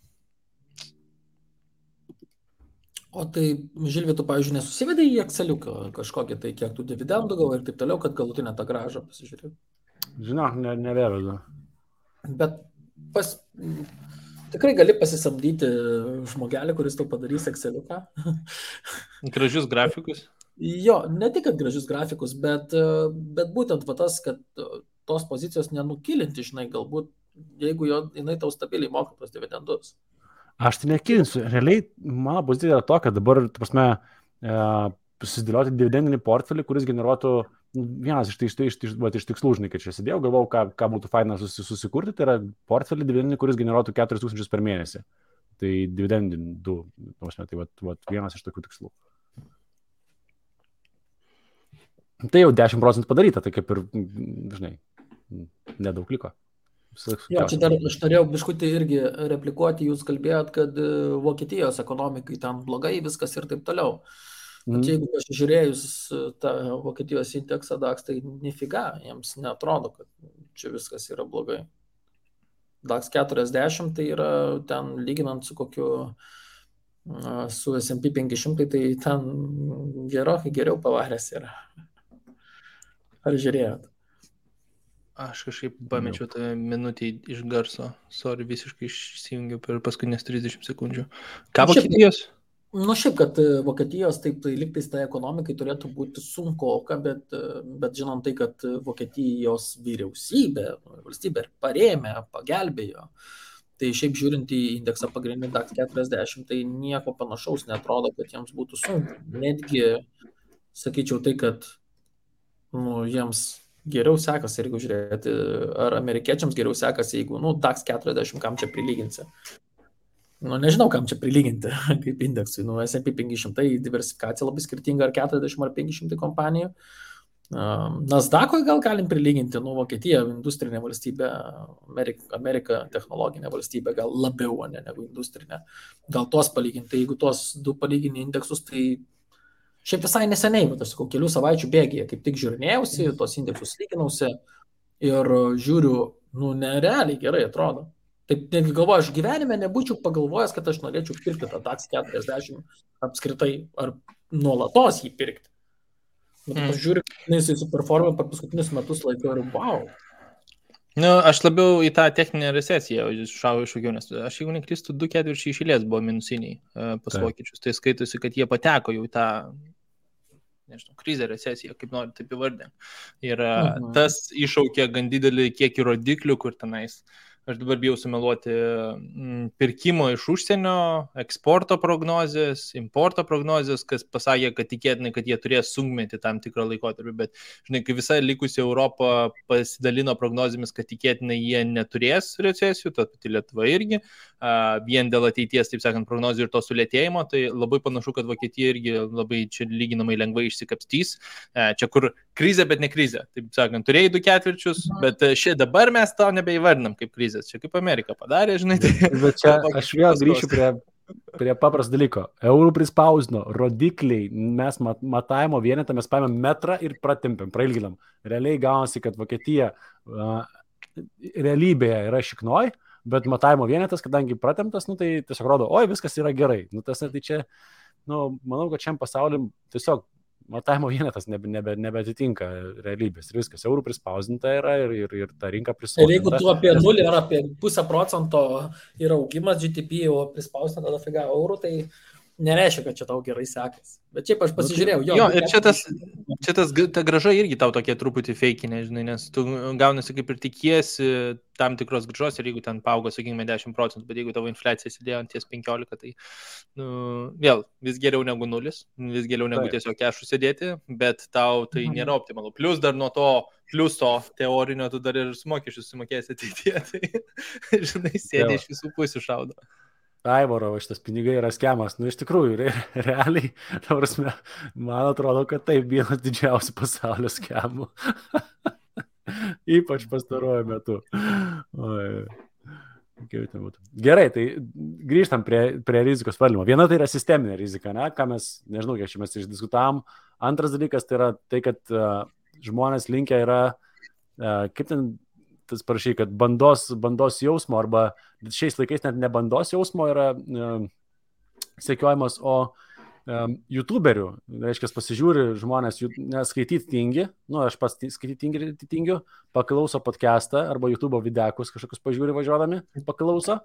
[SPEAKER 3] O tai, Žilvi, tu, pavyzdžiui, nesusivedai į Exceliuką kažkokį, tai kiek tų dividendų gavo ir taip toliau, kad galutinę tą grąžą pasižiūrėjau?
[SPEAKER 2] Žinok, nevedu.
[SPEAKER 3] Bet tikrai gali pasisamdyti žmogelį, kuris tau padarys Exceliuką.
[SPEAKER 4] Gražius grafikus.
[SPEAKER 3] Jo, ne tik, kad gražius grafikus, bet būtent va tas, kad tos pozicijos nenukilinti, žinai, galbūt, jeigu jinai tau stabiliai moka tos dividendus.
[SPEAKER 2] Aš tai nekilinsiu. Realiai, mano pozicija yra to, kad dabar, prasme, susidėlioti dividendinį portfelį, kuris generuotų vienas iš tikslų, žinai, kad čia sėdėjau, galvau, ką būtų faina susikurti, tai yra portfelį dividendinį, kuris generuotų 4000 per mėnesį. Tai dividendinį, prasme, tai vienas iš tokių tikslų. Tai jau 10% padaryta, tai kaip ir, žinai, nedaug liko.
[SPEAKER 3] Jo, čia dar aš norėjau biškutį irgi replikuoti, jūs kalbėjot, kad Vokietijos ekonomikai ten blogai viskas ir taip toliau. Bet jeigu pasižiūrėjus tą Vokietijos indeksą DAX, tai nifiga, jiems neatrodo, kad čia viskas yra blogai. DAX 40 tai yra ten lyginant su kokiu su S&P 500, tai ten gerokai geriau pavaręs yra. Ar žiūrėjot?
[SPEAKER 4] Aš kažkaip pamečiau tą minutį iš garso. Sorry, visiškai išsijungiau per paskutinės 30 sekundžių. Ką Vokietijos?
[SPEAKER 3] Šiaip, kad Vokietijos taip tai liktais tai ekonomikai turėtų būti sunkoka, bet žinom tai, kad Vokietijos vyriausybė, valstybė parėmė, pagelbėjo. Tai šiaip žiūrint į indeksą pagrindinį DAX 40, tai nieko panašaus netrodo, kad jiems būtų sunku. Netgi, sakyčiau tai, kad jiems geriau sekasi, jeigu žiūrėti, ar amerikiečiams geriau sekasi, jeigu DAX 40, kam čia prilyginsi. Nežinau, kam čia prilyginti, kaip indeksui. S&P 500 diversifikacija labai skirtinga, ar 40 ar 500 kompanijų. Nasdaq'ui gal galim prilyginti, Vokietija industrinė valstybė, Amerika technologinė valstybė, gal labiau negu industrinė. Gal tuos palyginti, jeigu tuos du palygini indeksus, tai šiaip visai neseniai, bet aš sakau, kelių savaičių bėgyje, kaip tik žiūrinėjausi, tuos indeksus lyginausi ir žiūriu, nerealiai gerai atrodo. Taip, netgi galvoju, aš gyvenime nebūčiau pagalvojęs, kad aš norėčiau pirkti tą DAX 40 apskritai, ar nuolatos jį pirkti. Bet aš žiūriu, jisai superformė per paskutinius metus laiko ir wow.
[SPEAKER 4] Aš labiau į tą techninę recesiją šau iššūkiau, nes aš jeigu neklystu, 2 ketvirčiai iš eilės buvo minusiniai pas vokiečius. Tai skaitosi, kad jie pateko jau į tą, nežinau, krizę, recesiją, kaip nori taip įvardinti. Ir tas iššaukė gan didelį kiekį rodiklių, kur tenais. Aš dabar bijau sumeluoti pirkimo iš užsienio, eksporto prognozės, importo prognozės, kas pasakė, kad tikėtinai, kad jie turės sunkmetį tam tikrą laikotarpį, bet, žinai, kai visa likusi Europa pasidalino prognozėmis, kad tikėtinai jie neturės recesijų, tad pati Lietuva irgi, vien dėl ateities, taip sakant, prognozijų ir to sulėtėjimo, tai labai panašu, kad Vokietija irgi labai čia lyginamai lengvai išsikapstys. Čia kur krizė, bet ne krizė. Taip sakant, turėjai 2 ketvirčius, bet dabar mes to nebeįvardinam kaip krizės. Čia kaip Amerika padarė, žinai.
[SPEAKER 2] Bet čia aš vėl grįšiu prie paprasto dalyko. Eurų prispausdino, rodikliai, mes matavimo vienetą, mes paėmėm metrą ir pratempėm, prailginam. Realiai gaunasi, kad Vokietija realybėje yra šiknoj, bet matavimo vienetas, kadangi pratemptas, tai tiesiog rodo, oi, viskas yra gerai. Tai čia, manau, kad šiam pasauliu tiesiog matavimo vienetas nebeatitinka realybės ir viskas. Eurų prispausdinta yra ir ta rinka prispausdinta.
[SPEAKER 3] Ir jeigu tu apie 0 ar apie 0,5% yra augimas GDP, o prispausdinta tada figa eurų, tai nereiškia, kad čia tau gerai sekasi. Bet šiaip aš pasižiūrėjau.
[SPEAKER 4] Jo, ir ta grąža irgi tau tokie truputį feikinė, žinai, nes tu gaunasi kaip ir tikiesi tam tikros grąžos ir jeigu ten paaugo, sakykime, 10%, bet jeigu tavo infliacija sėdėjo ant ties 15%, tai vėl vis geriau negu 0, vis geriau negu tiesiog kešų sėdėti, bet tau tai nėra optimalu. Plius dar nuo to pliuso teorinio tu dar ir mokesčius sumokėsi ateityje, tai, žinai, sėdė iš visų pusių šaudo.
[SPEAKER 2] Aivaro, šitas pinigai yra skemas. Iš tikrųjų, realiai, man atrodo, kad tai vienas didžiausių pasaulio skemų. Ypač pastaruoju metu. Gerai, tai grįžtam prie rizikos valdymo. Viena tai yra sisteminė rizika, ką mes, nežinau, kiek čia mes išdiskutavom. Antras dalykas tai yra tai, kad žmonės linkę yra, kaip ten tas parašy, kad bandos jausmo, arba šiais laikais net ne bandos jausmo yra sekiojimas, o YouTuberių. Reiškia, pasižiūri žmonės, skaityti tingi, aš pats skaityti tingiu, paklauso podcastą arba YouTube videkus kažkokius pažiūri važiuodami, paklauso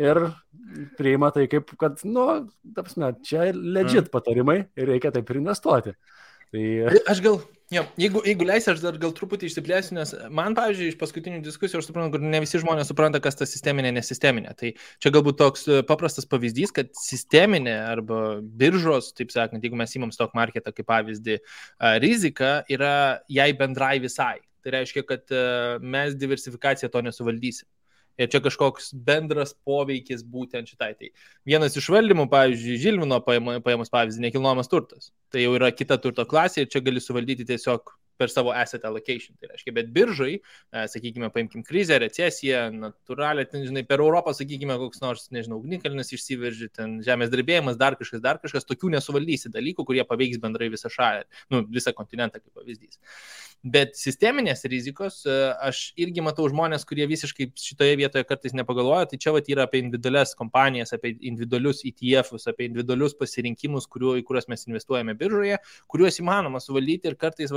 [SPEAKER 2] ir priima tai kaip, kad, čia legit patarimai ir reikia taip ir investuoti. Tai...
[SPEAKER 4] Aš gal, jeigu leisi, aš dar gal truputį išsiplėsiu, nes man, pavyzdžiui, iš paskutinių diskusijų aš suprantu, kad ne visi žmonės supranta, kas ta sisteminė, nesisteminė. Tai čia galbūt toks paprastas pavyzdys, kad sisteminė arba biržos, taip sakant, jeigu mes įmam stock marketą kaip pavyzdį, rizika yra jai bendrai visai. Tai reiškia, kad mes diversifikaciją to nesuvaldysim. Ir čia kažkoks bendras poveikis būtent šitai. Tai vienas iš valdymų, pavyzdžiui, Žilvino paėmus pavyzdį, nekilnojamas turtas. Tai jau yra kita turto klasė ir čia gali suvaldyti tiesiog per savo asset allocation. Tai reiškia, bet biržai, sakykime, paimkim krizę, recesiją, natūralią, žinai, per Europą, sakykime, koks nors, nežinau, ugnikalnis išsiveržė, ten žemės drebėjimas, dar kažkas, tokių nesuvaldysi dalykų, kurie paveiks bendrai visą šalį, visą kontinentą kaip pavyzdys. Bet sisteminės rizikos, aš irgi matau žmonės, kurie visiškai šitoje vietoje kartais nepagalvoja, tai čia yra apie individualias kompanijas, apie individualius ETF-us, apie individualius pasirinkimus, į kuriuos mes investuojame biržoje, kuriuos įmanoma suvaldyti ir kartais,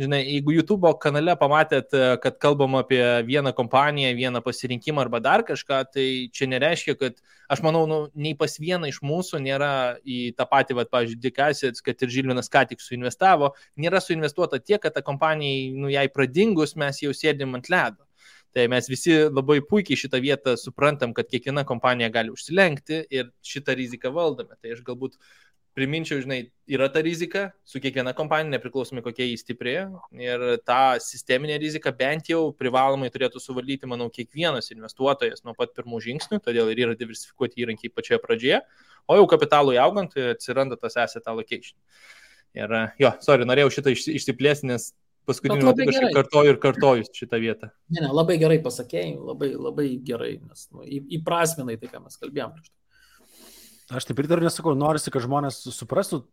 [SPEAKER 4] žinai, jeigu YouTube kanale pamatėt, kad kalbam apie vieną kompaniją, vieną pasirinkimą arba dar kažką, tai čia nereiškia, kad aš manau, nei pas vieną iš mūsų nėra į tą patį, pavyzdžiui, Dick Assets, kad ir Žilvinas ką tik suinvestavo, nėra suinvestuota tiek, kad ta kompanijai, jai pradingus, mes jau sėdim ant ledo. Tai mes visi labai puikiai šitą vietą suprantam, kad kiekviena kompanija gali užsilenkti ir šitą riziką valdome. Tai aš galbūt priminčiau, žinai, yra ta rizika su kiekviena kompanija, nepriklausomai kokia jį stiprėja. Ir tą sisteminę riziką bent jau privalomai turėtų suvaldyti, manau, kiekvienas investuotojas nuo pat pirmų žingsnių, todėl ir yra diversifikuoti įrankiai pačioje pradžioje, o jau kapitalui augant atsiranda tas asset allocation. Ir norėjau šitą išsiplėsti, nes paskutiniu metu kažkaip kartoju šitą vietą.
[SPEAKER 3] Ne, labai gerai pasakėjai, labai gerai, nes įprasminai tai, ką mes kalbėjom.
[SPEAKER 2] Aš taip ir dar nesakau, norisi, kad žmonės suprastų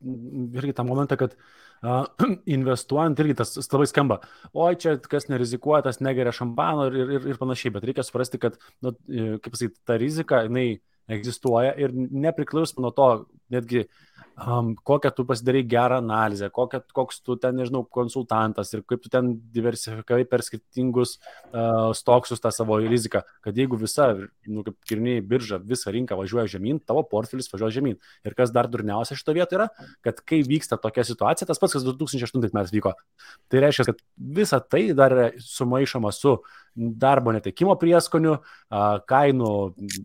[SPEAKER 2] irgi tą momentą, kad investuojant irgi tas labai skamba. Oi, čia kas nerizikuoja, tas negeria šampano ir panašiai, bet reikia suprasti, kad, kaip pasakyti, ta rizika, jinai egzistuoja ir nepriklausomai nuo to, netgi kokią tu pasidarai gerą analizę, koks tu ten, nežinau, konsultantas ir kaip tu ten diversifikavai per skirtingus stoksus tą savo riziką, kad jeigu visa, kaip kirniai birža, visa rinka važiuoja žemyn, tavo portfelis važiuoja žemyn. Ir kas dar durniausia šito vietoje yra, kad kai vyksta tokia situacija, tas pats, kas 2008 metais vyko, tai reiškia, kad visa tai dar yra sumaišoma su darbo netekimo prieskoniu, kainų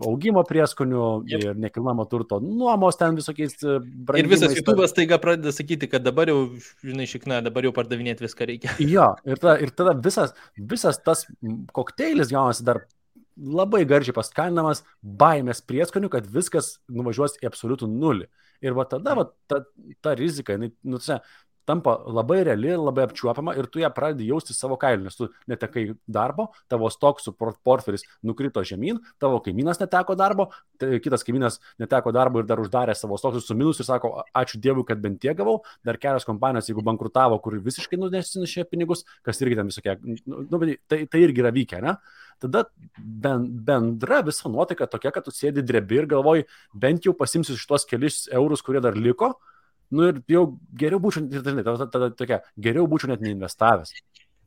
[SPEAKER 2] augimo prieskoniu ir nekilnojamo turto nuomos ten visokiais brangimais.
[SPEAKER 4] Ir visas YouTube'as taiga pradeda sakyti, kad dabar jau, žinai, šikna, dabar jau pardavinėti viską reikia.
[SPEAKER 2] Jo, ir tada visas tas kokteilis gaunasi dar labai garžiai paskalinamas baimės prieskoniu, kad viskas nuvažiuos į absoliutų nulį. Ir va tada ta rizika, tampa labai reali, labai apčiuopama ir tu ją pradedi jausti savo kailiu, nes tu netekai darbo, tavo stoksų portfelis nukrito žemyn, tavo kaimynas neteko darbo, kitas kaimynas neteko darbo ir dar uždarė savo stoksus su minus ir sako, ačiū Dievui, kad bent tiek gavau, dar kelios kompanijos, jeigu bankrutavo, kur visiškai nunesinešė pinigus, kas irgi ten visokie, tai irgi yra vykę, ne? Tada bendra visa nuotaika tokia, kad tu sėdi drebi ir galvoji, bent jau pasimsiu šitos kelis eurus, kurie dar liko, ir jau geriau būčiau, geriau būčiau net neinvestavęs.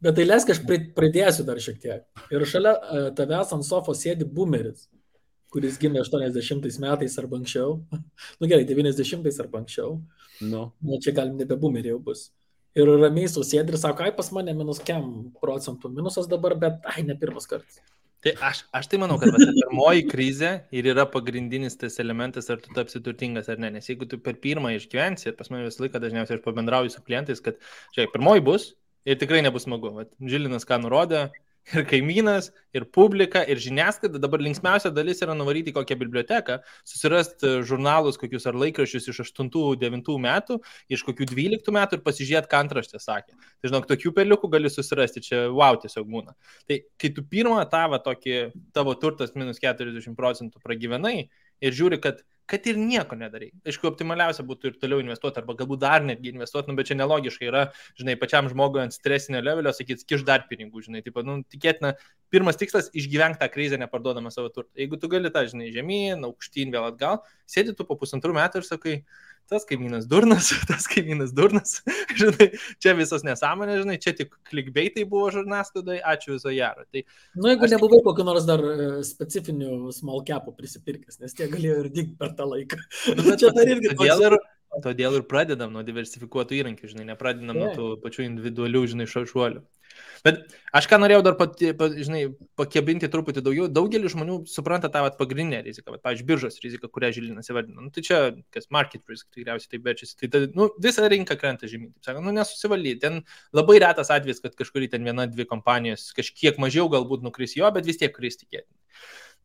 [SPEAKER 3] Bet tai leisk, aš pridėsiu dar šiek tiek. Ir šalia tavęs ant sofos sėdi boomeris, kuris gimė 80 metais arba anksčiau. Gerai, 90 arba anksčiau. Čia galim nebe boomeriai jau bus. Ir ramiai sėdi ir sako, pas mane minus kiam procentų minusas dabar, bet ne pirmas kartas.
[SPEAKER 4] Tai aš tai manau, kad pirmoji krizė ir yra pagrindinis tas elementas, ar tu tapsi turtingas ar ne. Nes jeigu tu per pirmą išgyvensi, ir pas mane visą laiką dažniausiai aš pabendrauju su klientais, kad pirmoji bus ir tikrai nebus smagu. Žilinas ką nurodė, ir kaimynas, ir publika, ir žiniasklaida. Dabar linksmiausia dalis yra nuvaryti kokią biblioteką, susirasti žurnalus kokius ar laikraščius iš 8-9 metų, iš kokių 12 metų ir pasižiūrėti, ką antraštė sakė. Tai žinok, tokių peliukų gali susirasti, čia tiesiog būna. Tai kai tu pirmą tavo turtas minus 40% pragyvenai ir žiūri, kad ir nieko nedarai. Aišku, optimaliausia būtų ir toliau investuoti, arba galbūt dar netgi investuoti, bet čia nelogiškai yra, žinai, pačiam žmogui ant stresinio levelio sakyti, kiš dar pinigų, žinai, tikėtina, pirmas tikslas išgyventi tą krizę neparduodama savo turtą. Jeigu tu gali tą, žinai, žemyn, aukštyn, vėl atgal, sėdi tu po 1,5 metų ir sakai, tas kaimynas durnas, žinai, čia visos nesąmonės, žinai, čia tik clickbaitai buvo žurnasklaidai, ačiū viso gero. Tai,
[SPEAKER 3] jeigu nebuvai kokio nors dar specifinių small capų prisipirkęs, nes tie galėjo ir dygti per tą laiką.
[SPEAKER 4] Todėl ir pradedam nuo diversifikuotų įrankių, žinai, nepradedam nuo tų pačių individualių, žinai, šuolių. Bet aš ką norėjau dar pakebinti truputį daugiau, daugelis žmonių supranta tą pagrindinę riziką, pavyzdžiui, biržos riziką, kurią Žilinas įvardino. Tai čia, kas market risk, tikriausiai taip verčiasi, tai visa rinka krenta žemyn, taip sakant, nesusivaldyti. Ten labai retas atvejis, kad kažkurį ten 1-2 kompanijos kažkiek mažiau galbūt nukris jo, bet vis tiek kris tikėtinai.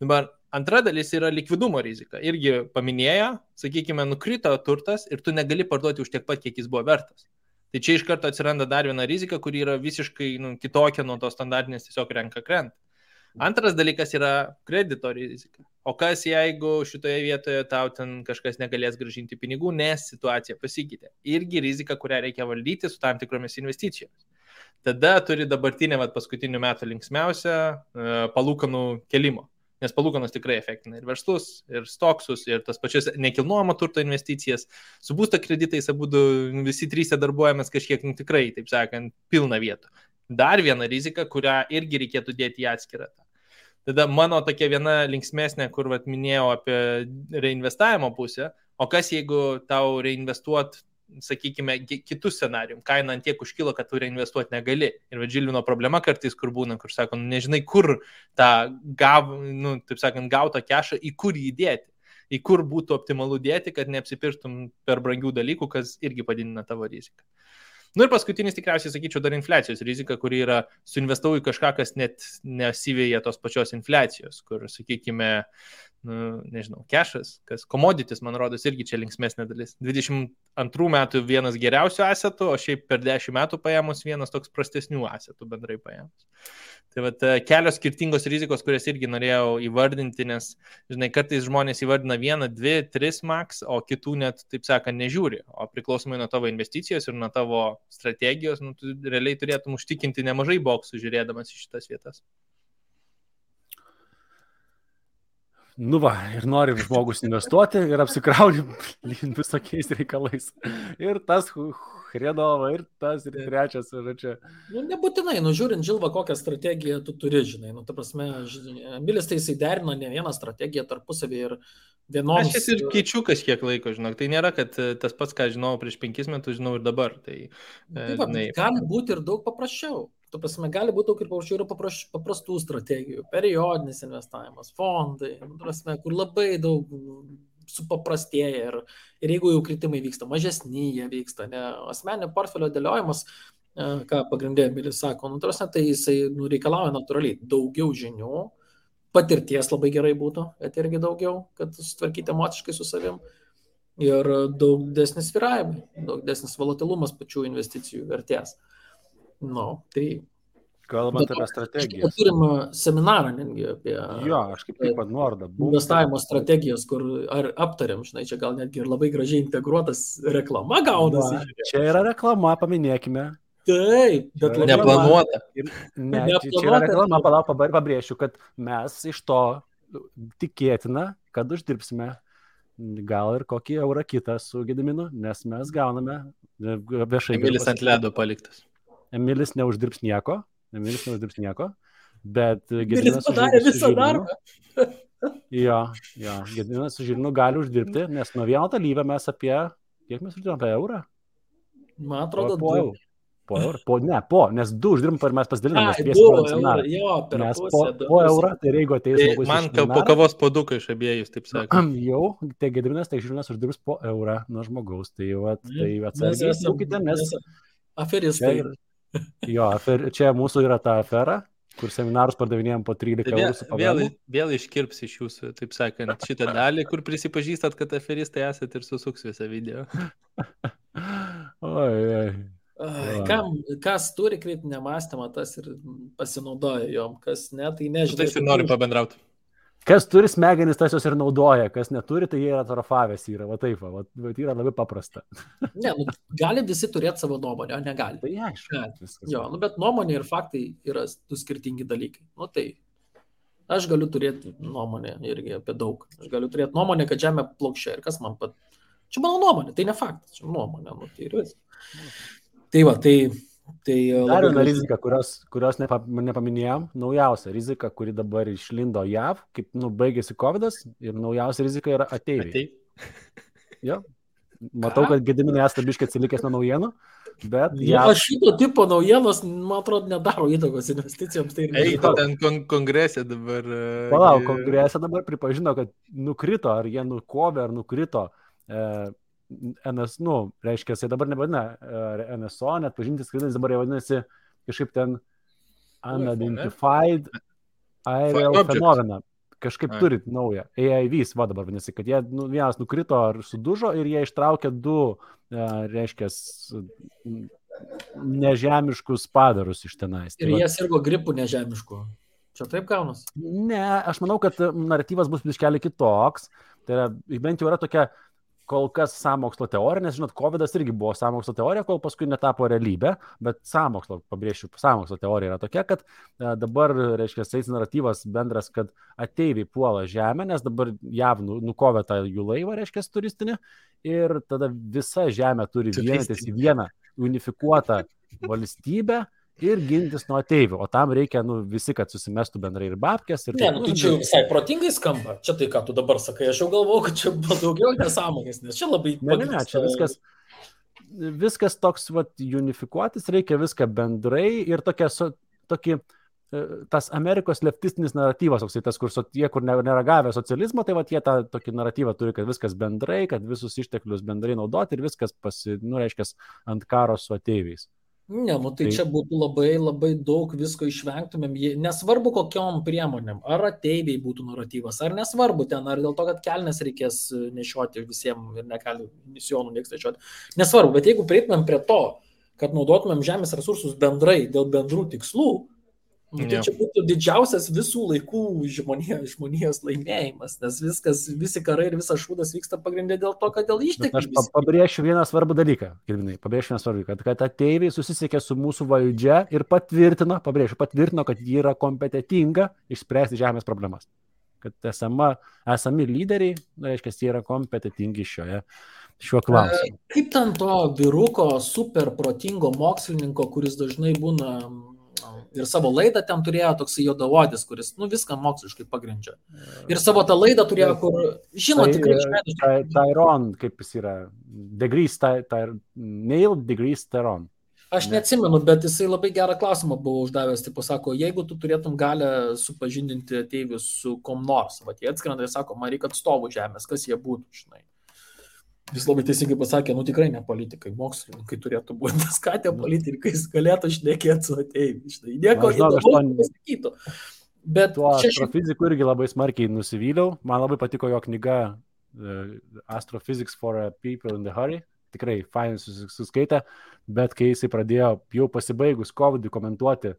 [SPEAKER 4] Dabar antra dalis yra likvidumo rizika. Irgi paminėjo, sakykime, nukrito turtas ir tu negali parduoti už tiek pat, kiek jis buvo vertas. Tai čia iš karto atsiranda dar viena rizika, kuri yra visiškai kitokia nuo tos standartinės, tiesiog renka krenta. Antras dalykas yra kredito rizika. O kas jeigu šitoje vietoje tau ten kažkas negalės grąžinti pinigų, nes situacija pasikeitė. Irgi rizika, kurią reikia valdyti su tam tikromis investicijomis. Tada turi dabartinę paskutinių metų linksmiausią palūkanų kelimo. nes palūkanos tikrai efektina ir verslus, ir stoksus, ir tas pačias nekilnojamo turto investicijas. Su būsto kreditais abudu visi trys darbuojamės kažkiek tikrai, taip sakant, pilna vietų. Dar viena rizika, kurią irgi reikėtų dėti į atskirą. Tada mano tokia viena linksmesnė, kur minėjau apie reinvestavimo pusę, o kas jeigu tau reinvestuot, sakykime, kitus scenarijum, kaina ant tiek užkilo, kad tu reinvestuoti negali. Ir Žilvino problema kartais, kur būna, kur sako, nežinai, kur tą taip sakant, gautą kešą, į kur jį dėti, į kur būtų optimalu dėti, kad neapsipirktum per brangių dalykų, kas irgi padidina tavo riziką. Ir paskutinis tikriausiai, sakyčiau, dar infliacijos rizika, kuri yra suinvestavau į kažką, kas net nesivėja tos pačios infliacijos, kur, sakykime, nežinau, kešas, kas commodities, man rodos, irgi čia linksmesnė dalis. 22 metų vienas geriausių asetų, o šiaip per 10 metų paėmus vienas toks prastesnių asetų bendrai paėmus. Tai vat kelios skirtingos rizikos, kurias irgi norėjau įvardinti, nes, žinai, kartais žmonės įvardina 1, 2, 3 max, o kitų net, taip sakant, nežiūri. O priklausomai nuo tavo investicijos ir nuo tavo strategijos, tu realiai turėtum užtikinti nemažai boksų žiūrėdamas į šitas vietas.
[SPEAKER 2] Ir nori žmogus investuoti ir apsikrauni visokiais reikalais. Ir tas Hredova, ir tas, ir trečias. Ir
[SPEAKER 3] nebūtinai, žiūrint, Žilva, kokią strategiją tu turi, žinai. Ta prasme, Emilis tai jisai derino ne vieną strategiją tarpusavį ir vienoms...
[SPEAKER 4] Aš ir keičiu kažkiek laiko, žinok. Tai nėra, kad tas pats, ką žinau prieš 5 metus, žinau ir dabar. Tai,
[SPEAKER 3] gali būti ir daug paprasčiau. Tu prasme, gali būti daug ir paprasčiau, yra paprastų strategijų, periodinis investavimas, fondai, prasme, kur labai daug supaprastėja ir jeigu jau kritimai vyksta, mažesni jie vyksta, ne, asmeninio portfelio dėliojimas, ką pagrindė Emilis sako, prasme, tai jisai reikalauja natūraliai daugiau žinių, patirties labai gerai būtų, bet irgi daugiau, kad sutvarkyti emociškai su savim ir daug desnis svyravimai, daug desnis volatilumas pačių investicijų vertės. Tai
[SPEAKER 2] kalbant apie strategijas.
[SPEAKER 3] Turim seminarą netgi apie
[SPEAKER 2] aš kaip tik noriu.
[SPEAKER 3] Investavimo strategijas, kur aptariam, žinai, čia gal netgi ir labai gražiai integruotas reklama gaunasi.
[SPEAKER 2] Čia yra reklama, paminėkime.
[SPEAKER 3] Taip, bet
[SPEAKER 4] neplanuota.
[SPEAKER 2] Čia yra reklama, pabrėšiu, kad mes iš to tikėtina, kad uždirbsime gal ir kokį eurą kitą su Gediminu, nes mes gauname viešai.
[SPEAKER 4] Emilis ant ledo paliktas.
[SPEAKER 2] Emilis neuždirbs nieko, bet
[SPEAKER 3] Gediminas padarė visą darbą.
[SPEAKER 2] Gediminas su Žilvinu gali uždirbti, nes nuo vieno dalyvio mes kiek mes uždirbame, apie eurą?
[SPEAKER 3] Man atrodo,
[SPEAKER 2] po eurą, nes 2 uždirbam ir mes pasidaliname. Mes po eurą, tai jeigu ateis žmogus.
[SPEAKER 4] Man po kavos puoduką iš abiejus, taip sakant.
[SPEAKER 2] Tai Gediminas, tai Žilvinas uždirbs po eurą nuo žmogaus, tai atsargiai saukite, nes
[SPEAKER 3] aferistai.
[SPEAKER 2] Čia mūsų yra ta afera, kur seminarus pardavinėjom po 13 eurų su pavėlu.
[SPEAKER 4] Vėl iškirps iš jūsų, taip sakant, šitą dalį, kur prisipažįstat, kad aferistai esat ir susuks visą video.
[SPEAKER 3] Kas turi kritinę mąstymą, tas ir pasinaudoja jom, kas ne, tai nežinau.
[SPEAKER 4] Taip ir noriu pabendrauti.
[SPEAKER 2] Kas turi smegenis, tas jos ir naudoja, kas neturi, tai jie yra atrofavęs, yra taip, yra labai paprasta.
[SPEAKER 3] Ne, gali visi turėti savo nuomonę, o negali.
[SPEAKER 2] Tai aišku.
[SPEAKER 3] Bet nuomonė ir faktai yra du skirtingi dalykai. Tai aš galiu turėti nuomonę irgi apie daug. Aš galiu turėti nuomonę, kad žemė plokščia ir kas man Čia mano nuomonė, tai ne faktas, čia nuomonė, tai ir vis.
[SPEAKER 2] Dar viena rizika, kurios nepaminėjom, naujausia rizika, kuri dabar išlindo JAV, kaip baigėsi COVID'as ir naujausia rizika yra ateiviai. Matau, kad Gediminai esate biškai atsilikęs nuo naujienų, bet
[SPEAKER 3] šito tipo naujienos, man atrodo, nedaro įtakos investicijoms.
[SPEAKER 4] Ten kongrese dabar...
[SPEAKER 2] Kongrese dabar pripažino, kad nukrito, ar jie nukovė, ar nukrito reiškia, jis dabar nevadina NSO, net pažintis skrydis dabar jau vadinasi kažkaip ten Unidentified Aerial Phenomena. Kažkaip turit naują. AIVs dabar vadinasi, kad jie vienas nukrito ar sudužo ir jie ištraukė 2, reiškia, nežemiškus padarus iš tenais.
[SPEAKER 3] Ir jie sirgo gripų nežemiškų. Čia taip gaunas?
[SPEAKER 2] Ne, aš manau, kad naratyvas bus biškelį kitoks. Tai yra, bent jau yra tokia kol kas sąmokslo teorija, nes, žinot, COVID-as irgi buvo sąmokslo teorija, kol paskui netapo realybė, bet pabrėšiu, sąmokslo teorija yra tokia, kad dabar, reiškia, eis naratyvas bendras, kad ateiviai puola žemę, nes dabar JAV nukovė tą jų laivą, reiškia, turistinį, ir tada visa žemė turi vienytis į vieną unifikuotą valstybę ir gintis nuo ateivių, o tam reikia, visi, kad susimestų bendrai ir babkės. Ir
[SPEAKER 3] tai čia jau visai protingai skamba. Čia tai, ką tu dabar sakai, aš jau galvoju, kad čia buvo daugiau nesąmonės, nes čia labai...
[SPEAKER 2] Ne, čia viskas toks, unifikuotis, reikia viską bendrai ir tokį tas Amerikos leftistinis naratyvas, tas, kur nėra gavę socializmo, tai jie tą tokį naratyvą turi, kad viskas bendrai, kad visus išteklius bendrai naudoti ir viskas reiškia ant karo su ateiviais.
[SPEAKER 3] Ne, tai čia būtų labai, labai daug visko išvengtumėm, nesvarbu kokiom priemonėm, ar ateiviai būtų naratyvas, ar nesvarbu ten, ar dėl to, kad kelnes reikės nešioti visiems ir negali misijonų nieks nešioti, nesvarbu, bet jeigu prieitumėm prie to, kad naudotumėm žemės resursus bendrai dėl bendrų tikslų, tai čia būtų didžiausias visų laikų žmonijos laimėjimas, nes visi karai ir visas šūdas vyksta pagrindė dėl to, kad dėl išteklių.
[SPEAKER 2] Aš pabrėšiu vieną svarbų dalyką, kad ateiviai susisiekė su mūsų valdžia ir patvirtino, kad ji yra kompetitinga išspręsti žemės problemas. Kad esami lyderiai, reiškia, jie yra kompetitingi šiuo klausimu.
[SPEAKER 3] Kaip ten to vyruko super protingo mokslininko, kuris dažnai būna ir savo laidą ten turėjo toksai juodaodis, kuris, viską moksliškai pagrindžia. Ir savo tą laidą turėjo, kur, tikrai išmėdžiu.
[SPEAKER 2] Tyron, kaip jis yra, Neil deGrasse Tyson.
[SPEAKER 3] Aš neatsimenu, bet jisai labai gerą klausimą buvo uždavęs, sako, jeigu tu turėtum galę supažindinti ateivius su kom nors, jie atskrenda ir sako, man reikia atstovų žemės, kas jie būtų, žinai. Jis labai teisingai pasakė, tikrai ne politikai, mokslininkai turėtų būti, nes ką tie politikai galėtų šnekėti su ateiviais. Nieko įdomu pasakytų. Bet
[SPEAKER 2] tuo astrofizikų irgi labai smarkiai nusivyliau. Man labai patiko jo knyga Astrophysics for People in the Hurry. Tikrai fainai suskaitė, bet kai jisai pradėjo jau pasibaigus COVID komentuoti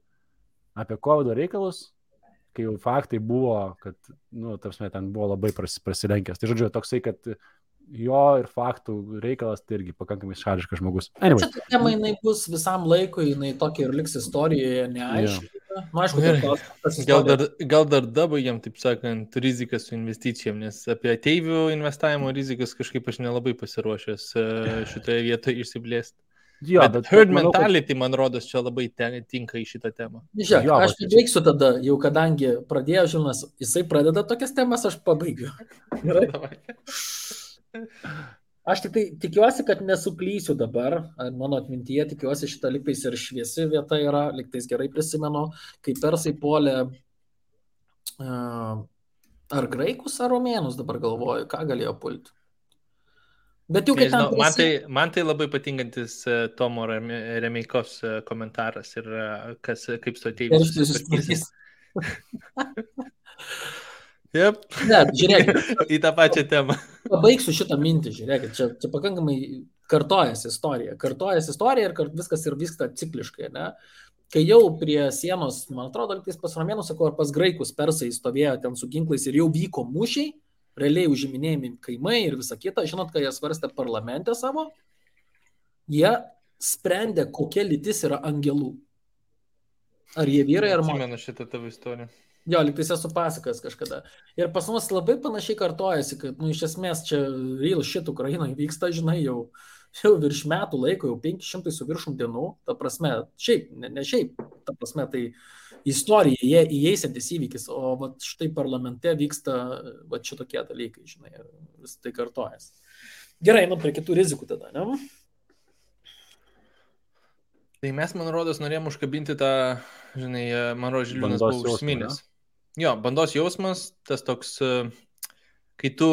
[SPEAKER 2] apie COVID reikalus, kai jau faktai buvo, kad, ten buvo labai prasilenkęs. Tai žodžiu, toksai, kad jo ir faktų reikalas tai irgi pakankamai šališkas žmogus.
[SPEAKER 3] Anyway. Čia tema jinai bus visam laikui, jinai tokia ir liks istorijoje neaiškiai.
[SPEAKER 4] Aišku, gal dar dabaigiam, taip sakant, riziką su investicijom, nes apie ateivių investavimo rizikas kažkaip aš nelabai pasiruošęs šitoje vietoje išsiplėsti. Bet herd mentality, man rodos, čia labai tinka į šitą temą.
[SPEAKER 3] Žiūrėk, aš baigsiu tada, jau kadangi pradėjo Žilvinas, jisai pradeda tokias temas, aš pabaigiu. Gerai. Aš tik tai tikiuosi, kad nesuklysiu dabar, mano atmintyje tikiuosi šitą liktais ir šviesi vieta yra, liktais gerai prisimenu, kai persai puolė ar graikus, ar romėnus dabar galvoju, ką galėjo pulti. Bet jau
[SPEAKER 4] man tai labai patinkantis Tomo Remeikos komentaras ir kaip su ateiviais. Yep.
[SPEAKER 3] Ne, žiūrėkit.
[SPEAKER 4] Į tą pačią temą.
[SPEAKER 3] Pabaigsiu šitą mintį, žiūrėkit, čia pakankamai kartojasi istorija ir viskas ir vyksta cikliškai, ne? Kai jau prie sienos, man atrodo, pas romėnus, ar pas graikus persai stovėjo ten su ginklais ir jau vyko mūšiai, realiai užiminėjami kaimai ir visa kita, žinot, kai jie svarstė parlamente savo, jie sprendė, kokia lytis yra angelų. Ar jie vyrai, ar moteris.
[SPEAKER 4] Atsimenu šitą tavo istoriją.
[SPEAKER 3] Jo, liktais esu pasakas kažkada. Ir pas mus labai panašiai kartojasi, kad, iš esmės, čia real shit Ukrainoje vyksta, žinai, jau virš metų laiko, jau 500 su viršum dienų, ta prasme, šiaip, ne šiaip, ta prasme, tai istorija, įeisiantis įvykis, o vat, štai parlamente vyksta vat, šitokie dalykai, žinai, vis tai kartojasi. Gerai, prie kitų rizikų tada, ne?
[SPEAKER 4] Tai mes, man rodos, norėjom užkabinti tą, žinai, man rodos, Žilvinas buvo užsiminęs. Jo, bandos jausmas, tas toks, kai tu,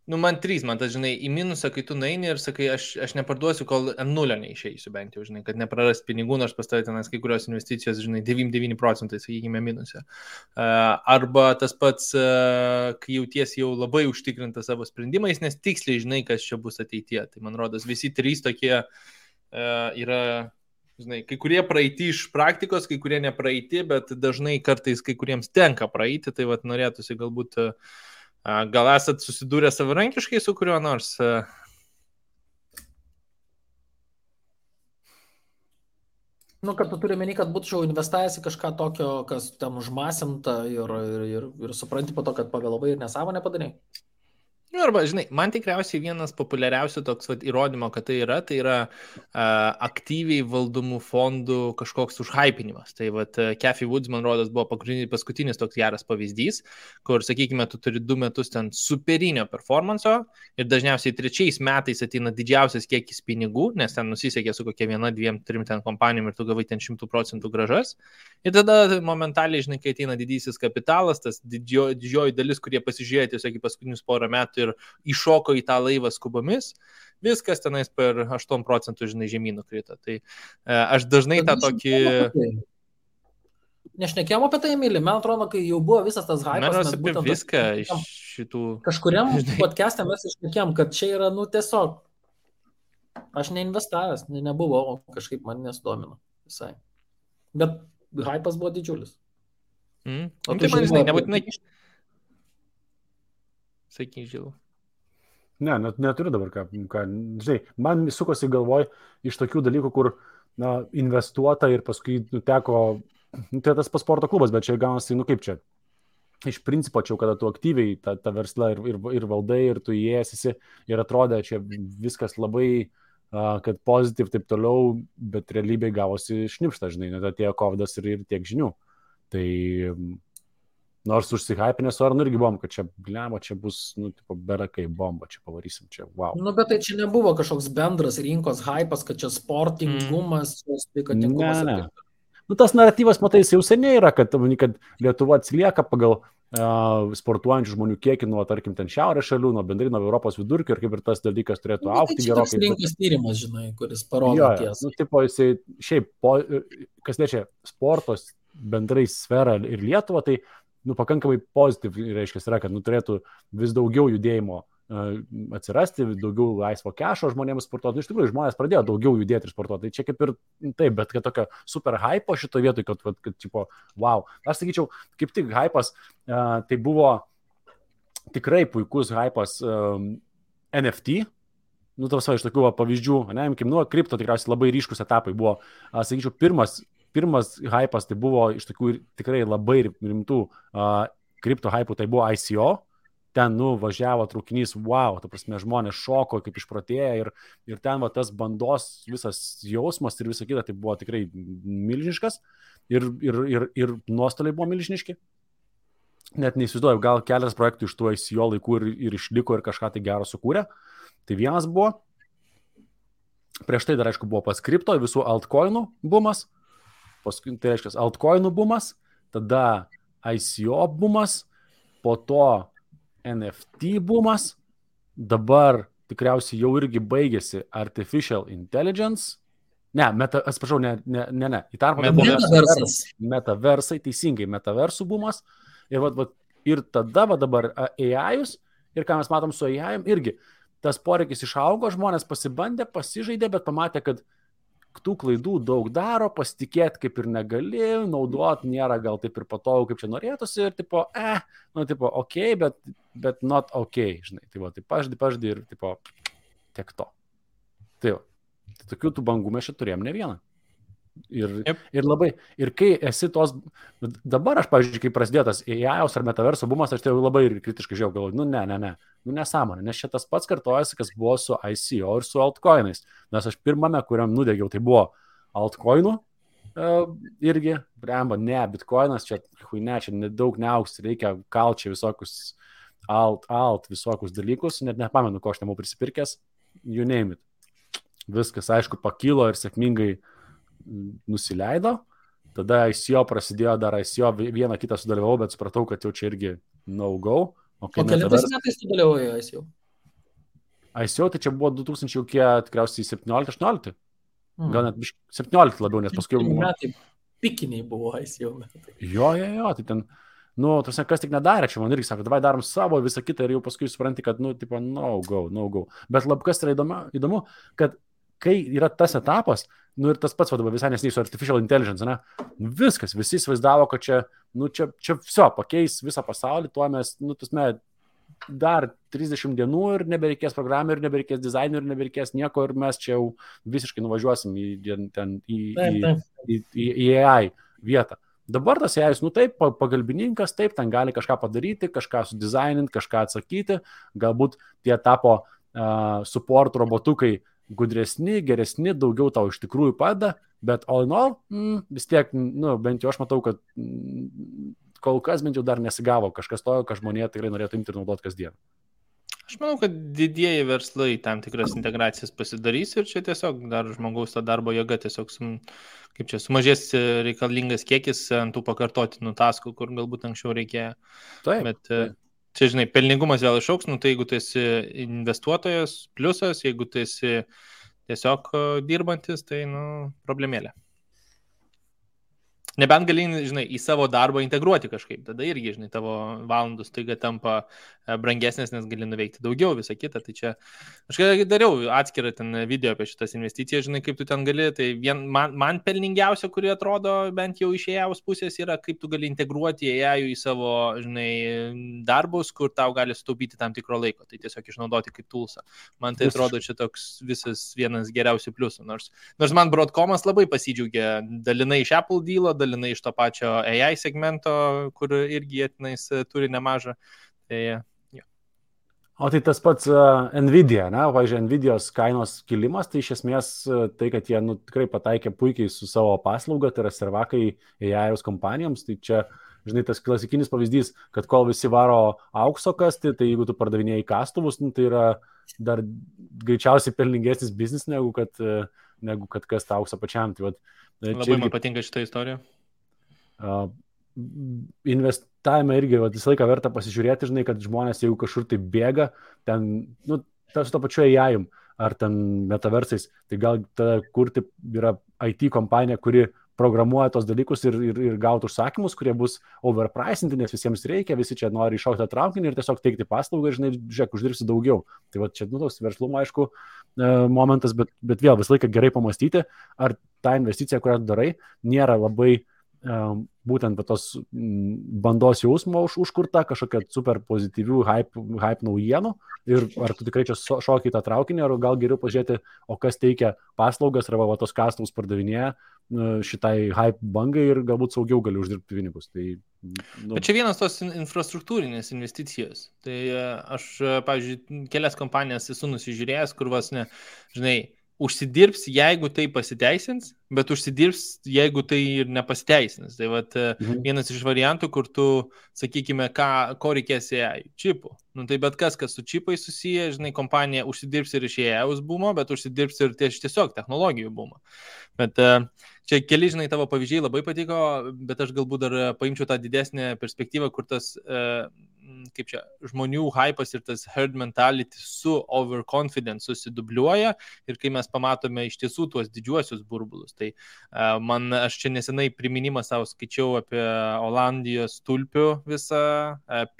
[SPEAKER 4] man tas, žinai, į minusą, kai tu nueini ir sakai, aš neparduosiu, kol ant nulio neišeisiu bent jau, žinai, kad neprarast pinigų, nors pas tavai tenas kai kurios investicijos, žinai, 99%, sakykime, minuse. Arba tas pats, kai jautiesi jau labai užtikrintas savo sprendimais, nes tiksliai žinai, kas čia bus ateityje. Tai man rodos, visi trys tokie yra... Žinai, kai kurie praeiti iš praktikos, kai kurie nepraeiti, bet dažnai kartais kai kuriems tenka praeiti, tai vat norėtųsi galbūt Gal esat susidūrę savarankiškai su kuriuo nors?
[SPEAKER 3] Nu, kad tu turi meni, kad būčiau investavęs į kažką tokio, kas ten užmasinta ir supranti po to, kad pavėlavai ir nesąmonę padarai.
[SPEAKER 4] Arba, žinai, man tikriausiai vienas populiariausių toks įrodymo, kad tai yra aktyviai valdomų fondų kažkoks užhypinimas. Tai Cathy Woods, man rodos, buvo paskutinis toks geras pavyzdys, kur, sakykime, tu turi 2 metus ten superinio performanso ir dažniausiai 3 metais ateina didžiausias kiekis pinigų, nes ten nusisekė su kokia 1, 2, 3 ten kompanijom ir tu gavai ten 100% gražas. Ir tada momentaliai, žinai, kai ateina didysis kapitalas, tas didžioji dalis, kurie pasižiūrėjo tiesiog į paskutinius porą metų ir iššoko į tą laivą skubomis, viskas tenais per 8%, žinai, žemynų krito. Tai aš dažnai tą tokį...
[SPEAKER 3] Nešnekėjom apie tai, Emilį, man atrodo, kai jau buvo visas tas hypas,
[SPEAKER 4] mes apie viską iš šitų...
[SPEAKER 3] Kažkuriam podcast'e mes išnekėjom, kad čia yra, tiesiog, aš neinvestavęs, nebuvo, o kažkaip man nesudomino visai. Bet hypas buvo didžiulis.
[SPEAKER 4] O tai man, žinai, nebūtinai... Sakyk, Žilau.
[SPEAKER 2] Ne, neturiu dabar ką. Žinai, man sukosi galvoj iš tokių dalykų, kur investuota ir paskui teko, tai tas sporto klubas, bet čia gaunasi, kaip čia. Iš principo, čia kada tu aktyviai tą verslą ir valdai, ir tu įėjęs ir atrodė, čia viskas labai, kad pozityv taip toliau, bet realybėje gavosi šnipšta, žinai, net atėjo kovidas ir tiek žinių. Tai... Nors užsihypinės Ornų irgi buvom, kad čia, čia bus, berakai bomba, čia pavarysim, čia wow.
[SPEAKER 3] Bet tai čia nebuvo kažkoks bendras rinkos hypas, kad čia sportingumas, sveikatingumas.
[SPEAKER 2] Ne. Tas naratyvas, matai, jau seniai yra, kad Lietuva atsilieka pagal sportuojančių žmonių kiekį nuo, tarkim, ten šiaurės šalių, nuo bendrai nuo Europos vidurkio ir kaip ir tas dalykas turėtų augti gerokai.
[SPEAKER 3] Tai čia rinkos tyrimas, žinai, kuris parodo tiesą.
[SPEAKER 2] Jisai šiaip, kas liečia sportos bendrai sferą ir Lietuvą, tai pakankamai pozityv, reiškia, yra, kad turėtų vis daugiau judėjimo atsirasti, daugiau laisvo kešo žmonėms sportuoti. Iš tikrųjų, žmonės pradėjo daugiau judėti ir sportuoti. Tai čia kaip ir taip, bet kad tokio super hypo šito vietoj, kad tipo, wow. Aš sakyčiau, kaip tik hypas, tai buvo tikrai puikus hypas NFT. Tavas iš tokių pavyzdžių, kripto tikriausiai labai ryškus etapai buvo, sakyčiau, pirmas hypas tai buvo iš tokių tikrai labai rimtų kripto hypų, tai buvo ICO, ten važiavo traukinys, wow, ta prasme, žmonės šoko kaip išprotėję ir ten tas bandos visas jausmas ir visa kita, tai buvo tikrai milžiniškas ir nuostoliai buvo milžiniški. Net neįsivaizduoju, gal keletas projektų iš tų ICO laikų ir išliko ir kažką tai gero sukūrė. Tai vienas buvo, prieš tai dar aišku buvo pas kripto visų altcoinų bumas, paskui tai reiškia altcoinų bumas, tada ICO bumas, po to NFT bumas, dabar tikriausiai jau irgi baigėsi Artificial Intelligence, atsiprašau, ne, į tarpą metaversai, teisingai, metaversų bumas, ir tada dabar AI-us, ir ką mes matom su AI-um, irgi tas poreikis išaugo, žmonės pasibandė, pasižaidė, bet pamatė, kad tų klaidų daug daro, pasitikėti kaip ir negali, naudot nėra gal taip ir patogu, kaip čia norėtųsi, ir tipo, ok, bet not ok, žinai, tai paždį ir tipo, tiek to. Tai tokių tų bangų mes čia turėjom ne vieną. Ir labai, ir kai esi tos, dabar aš, pavyzdžiui, kai prasidėjo tas AI-os ar metaverso bumas, aš tai labai kritiškai žiūrėjau, galvoju, nesąmonė, nes šitas pats kartojasi, kas buvo su ICO ir su altcoinais, nes aš pirmame, kuriam nudegiau, tai buvo altcoinų, irgi, bitcoinas, čia nedaug neaugs, reikia kalčiai visokius visokius dalykus, net nepamenu, ko aš nebuvau prisipirkęs, you name it. Viskas, aišku, pakilo ir sėkmingai nusileido, tada ICO prasidėjo, dar ICO vieną kitą sudalyvau, bet supratau, kad jau čia irgi no-go.
[SPEAKER 3] O kelintais metais tu dalyvauji ICO?
[SPEAKER 2] ICO tai čia buvo 2000, tikriausiai 17-18, gal net 17 labiau, nes paskui...
[SPEAKER 3] Metai pikiniai buvo ICO metai.
[SPEAKER 2] Jo, tai ten, kas tik nedarė, čia man irgi sako, davai darom savo visą kitą ir jau paskui supranti, kad, tipo, no-go. Bet kas yra įdomu, kad kai yra tas etapas, ir tas pats vadovas visai nesiniai su Artificial Intelligence, viskas, visi įsivaizdavo, kad čia viso, pakeis visą pasaulį, tuo mes, dar 30 dienų ir nebereikės programų, ir nebereikės dizainų, ir nebereikės nieko, ir mes čia jau visiškai nuvažiuosim į AI vietą. Dabar tas AI, taip, pagalbininkas, taip, ten gali kažką padaryti, kažką sudizaininti, kažką atsakyti, galbūt tie tapo support robotukai gudresni, geresni, daugiau tau iš tikrųjų padeda, bet all in all, vis tiek, bent jau aš matau, kad kol kas bent jau dar nesigavo kažkas to, ką žmonė tikrai norėtų imti ir naudoti kasdien.
[SPEAKER 4] Aš manau, kad didieji verslai tam tikras integracijas pasidarys ir čia tiesiog dar žmogaus ta darbo jėga tiesiog sumažės reikalingas kiekis ant tų pakartotinų taskų, kur galbūt anksčiau reikėjo.
[SPEAKER 2] Taip.
[SPEAKER 4] Bet čia, žinai, pelningumas vėl išauks, tai jeigu tu esi investuotojas, pliusas, jeigu tu esi tiesiog dirbantis, tai, problemėlė. Nebent gali, žinai, į savo darbą integruoti kažkaip, tada irgi, žinai, tavo valandų staiga tampa brangesnės, nes gali nuveikti daugiau, visą kitą. Tai čia, aš dariau atskirą ten video apie šitas investicijas, žinai, kaip tu ten gali, tai man pelningiausia, kuri atrodo bent jau iš AI pusės yra, kaip tu gali integruoti AI į savo, žinai, darbus, kur tau gali sutaupyti tam tikro laiko, tai tiesiog išnaudoti kaip toolsą. Man tai atrodo čia toks visas vienas geriausių pliusų, nors man Broadcomas labai pasidžiaugė dalinai iš Apple dealo, dalinai iš to pačio AI segmento, kur irgi jie turi nemažą. Tai, jo.
[SPEAKER 2] O tai tas pats Nvidia, pavyzdžiui, Nvidios kainos kilimas, tai iš esmės tai, kad jie tikrai pataikė puikiai su savo paslauga, tai yra servakai AI kompanijoms, tai čia, žinai, tas klasikinis pavyzdys, kad kol visi varo aukso kasti, tai jeigu tu pardavinėjai kastuvus, tai yra dar greičiausiai pelningesnis biznis, negu kad kasta auksą pačiam. Tai,
[SPEAKER 4] labai man patinka šitą istoriją.
[SPEAKER 2] Investavime irgi visą laiką verta pasižiūrėti, žinai, kad žmonės, jeigu kažkur tai bėga, ten, su to pačiu AI ar ten metaversais, tai gal tada kurti yra IT kompanija, kuri programuoja tos dalykus ir gautų užsakymus, kurie bus overpricinti, nes visiems reikia, visi čia nori iššaukti tą traukinį ir tiesiog teikti paslaugą ir, žinai, žiūrėk, uždirbsi daugiau. Tai čia, toks verslumo, aišku, momentas, bet vėl visą laiką gerai pamastyti, ar ta investicija, kurią darai, nėra labai būtent tos bandos jausmo užkurta, kažkokia super pozityvių hype naujienų ir ar tu tikrai čia šoki tą traukinį, ar gal geriau pažiūrėti, o kas teikia paslaugas, arba tos kastuvus pardavinėja šitai hype bangai ir galbūt saugiau gali uždirbti pinigus. Tai,
[SPEAKER 4] Bet čia vienas tos infrastruktūrinės investicijos. Tai aš, pavyzdžiui, kelias kompanijas esu nusižiūrėjęs, kur žinai, užsidirbs, jeigu tai pasiteisins, bet užsidirbs, jeigu tai ir nepasiteisins. Tai vienas iš variantų, kur tu, sakykime, ko reikės AI, čipų. Tai bet kas su čipai susiję, žinai, kompanija užsidirbs ir iš AI bumo, bet užsidirbs ir tiesiog technologijų bumo. Bet čia keli, žinai, tavo pavyzdžiai labai patiko, bet aš galbūt dar paimčiau tą didesnę perspektyvą, kur tas kaip čia, žmonių hypas ir tas herd mentality su overconfidence susidubliuoja ir kai mes pamatome iš tiesų tuos didžiuosius burbulus. Tai aš čia nesenai priminimą savo skaičiau apie Olandijos tulpių visą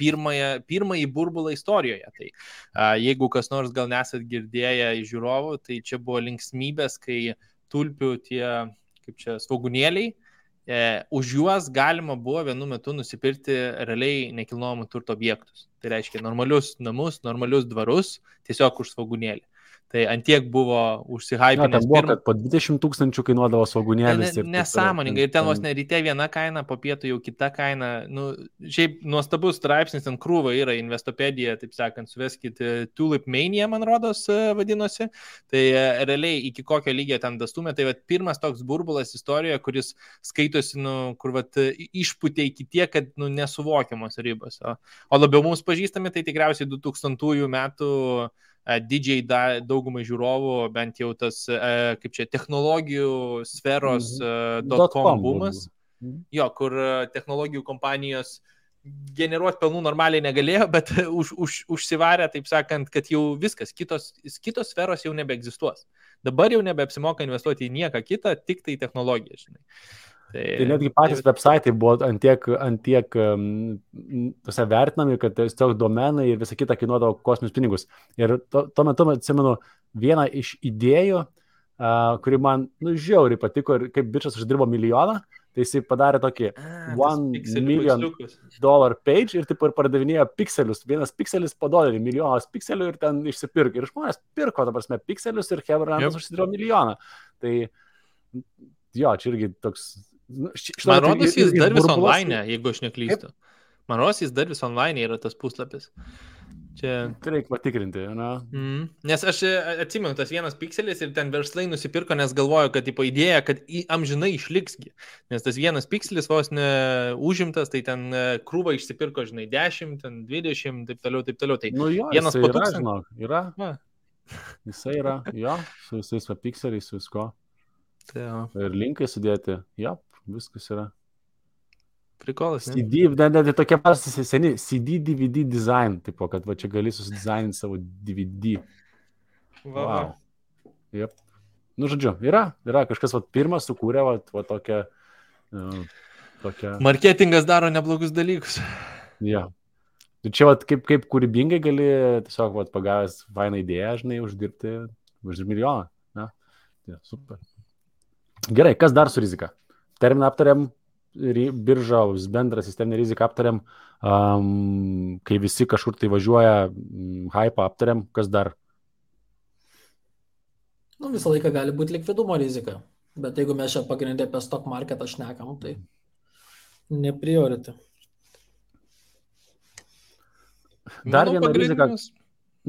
[SPEAKER 4] pirmąjį burbulą istorijoje. Tai jeigu kas nors gal nesat girdėję iš žiūrovų, tai čia buvo linksmybės, kai tulpių tie, kaip čia, svogūnėliai, už juos galima buvo vienu metu nusipirkti realiai nekilnojamų turto objektus. Tai reiškia normalius namus, normalius dvarus, tiesiog už svogūnėlį. Tai antiek buvo užsihypinęs.
[SPEAKER 2] Ten buvo, kad po 20 000 kainuodavo svogūnėlis.
[SPEAKER 4] Nesąmoningai. Ir ten vos ne ryte viena kaina, po pietų jau kita kaina. Šiaip nuostabus straipsnis, ten krūva yra Investopedija, taip sakant, suveskit Tulip Mania, man rodos, vadinosi. Tai realiai iki kokio lygio ten dastumė. Tai pirmas toks burbulas istorijoje, kuris skaitosi, kur išputė iki tiek, kad nesuvokiamos ribos. O labiau mums pažįstami, tai tikriausiai 2000 metų didžiai daugumai žiūrovų, bent jau tas, kaip čia, technologijų sferos .com bumas, kur technologijų kompanijos generuoti pelnų normaliai negalėjo, bet užsivarė, taip sakant, kad jau viskas, kitos sferos jau nebeegzistuos. Dabar jau nebeapsimoka investuoti į nieką kitą, tik tai technologiją, žinai.
[SPEAKER 2] Tai netgi patys websaitai buvo antiek vertinami, kad tiesiog domenai ir visa kita kainuodavo kosminius pinigus. Ir tuo metu, atsimenu, vieną iš idėjų, kuri man žiauriai patiko ir kaip bičas uždirbo milijoną, tai jisai padarė tokį $1 million page ir taip ir pardavinėjo pikselius. Vienas pikselis po $1, milijonas pikselių ir ten išsipirko. Ir žmonės pirko, ta prasme, pikselius ir Hebrandas užsidirbo milijoną. Tai jo, čia irgi toks...
[SPEAKER 4] Man rodos, jis dar vis online, jeigu aš neklystu. Man rodos, jis dar vis online yra tas puslapis. Čia... Tai
[SPEAKER 2] reikia patikrinti, na?
[SPEAKER 4] Nes aš atsimenu, tas vienas pikselis ir ten verslai nusipirko, nes galvoju, kad tipo idėja, kad amžinai išliksgi. Nes tas vienas pikselis vos neužimtas, tai ten krūva išsipirko, žinai, 10, ten 20, taip toliau. Tai
[SPEAKER 2] nu jo,
[SPEAKER 4] vienas
[SPEAKER 2] yra, žinok, yra. Jisai yra, jo, su visais pikseliais, su visko.
[SPEAKER 4] Tai
[SPEAKER 2] ir linkai sudėti, jo, viskas yra.
[SPEAKER 4] Prikolas, ne?
[SPEAKER 2] CD, net tokie seni CD, DVD design, tipo, kad va čia gali susidizaininti savo DVD. Wow. Yep. Nu, žodžiu, yra kažkas, va, pirmas sukūrė, va tokią...
[SPEAKER 4] Marketingas daro neblogus dalykus.
[SPEAKER 2] Ja. Tai čia, va, kaip kūrybingai gali tiesiog, va, pagavęs fainą idėją, žinai, uždirbti milijoną. Ja? Ja, super. Gerai, kas dar su rizika? Terminą aptariam. Birža, bendrą sisteminę riziką aptariam, kai visi kažkur tai važiuoja, hype aptariam, kas dar?
[SPEAKER 3] Nu, visą laiką gali būti likvidumo rizika, bet jeigu mes čia pagrindė apie stock marketą šnekam, tai ne priority.
[SPEAKER 2] Dar viena rizika.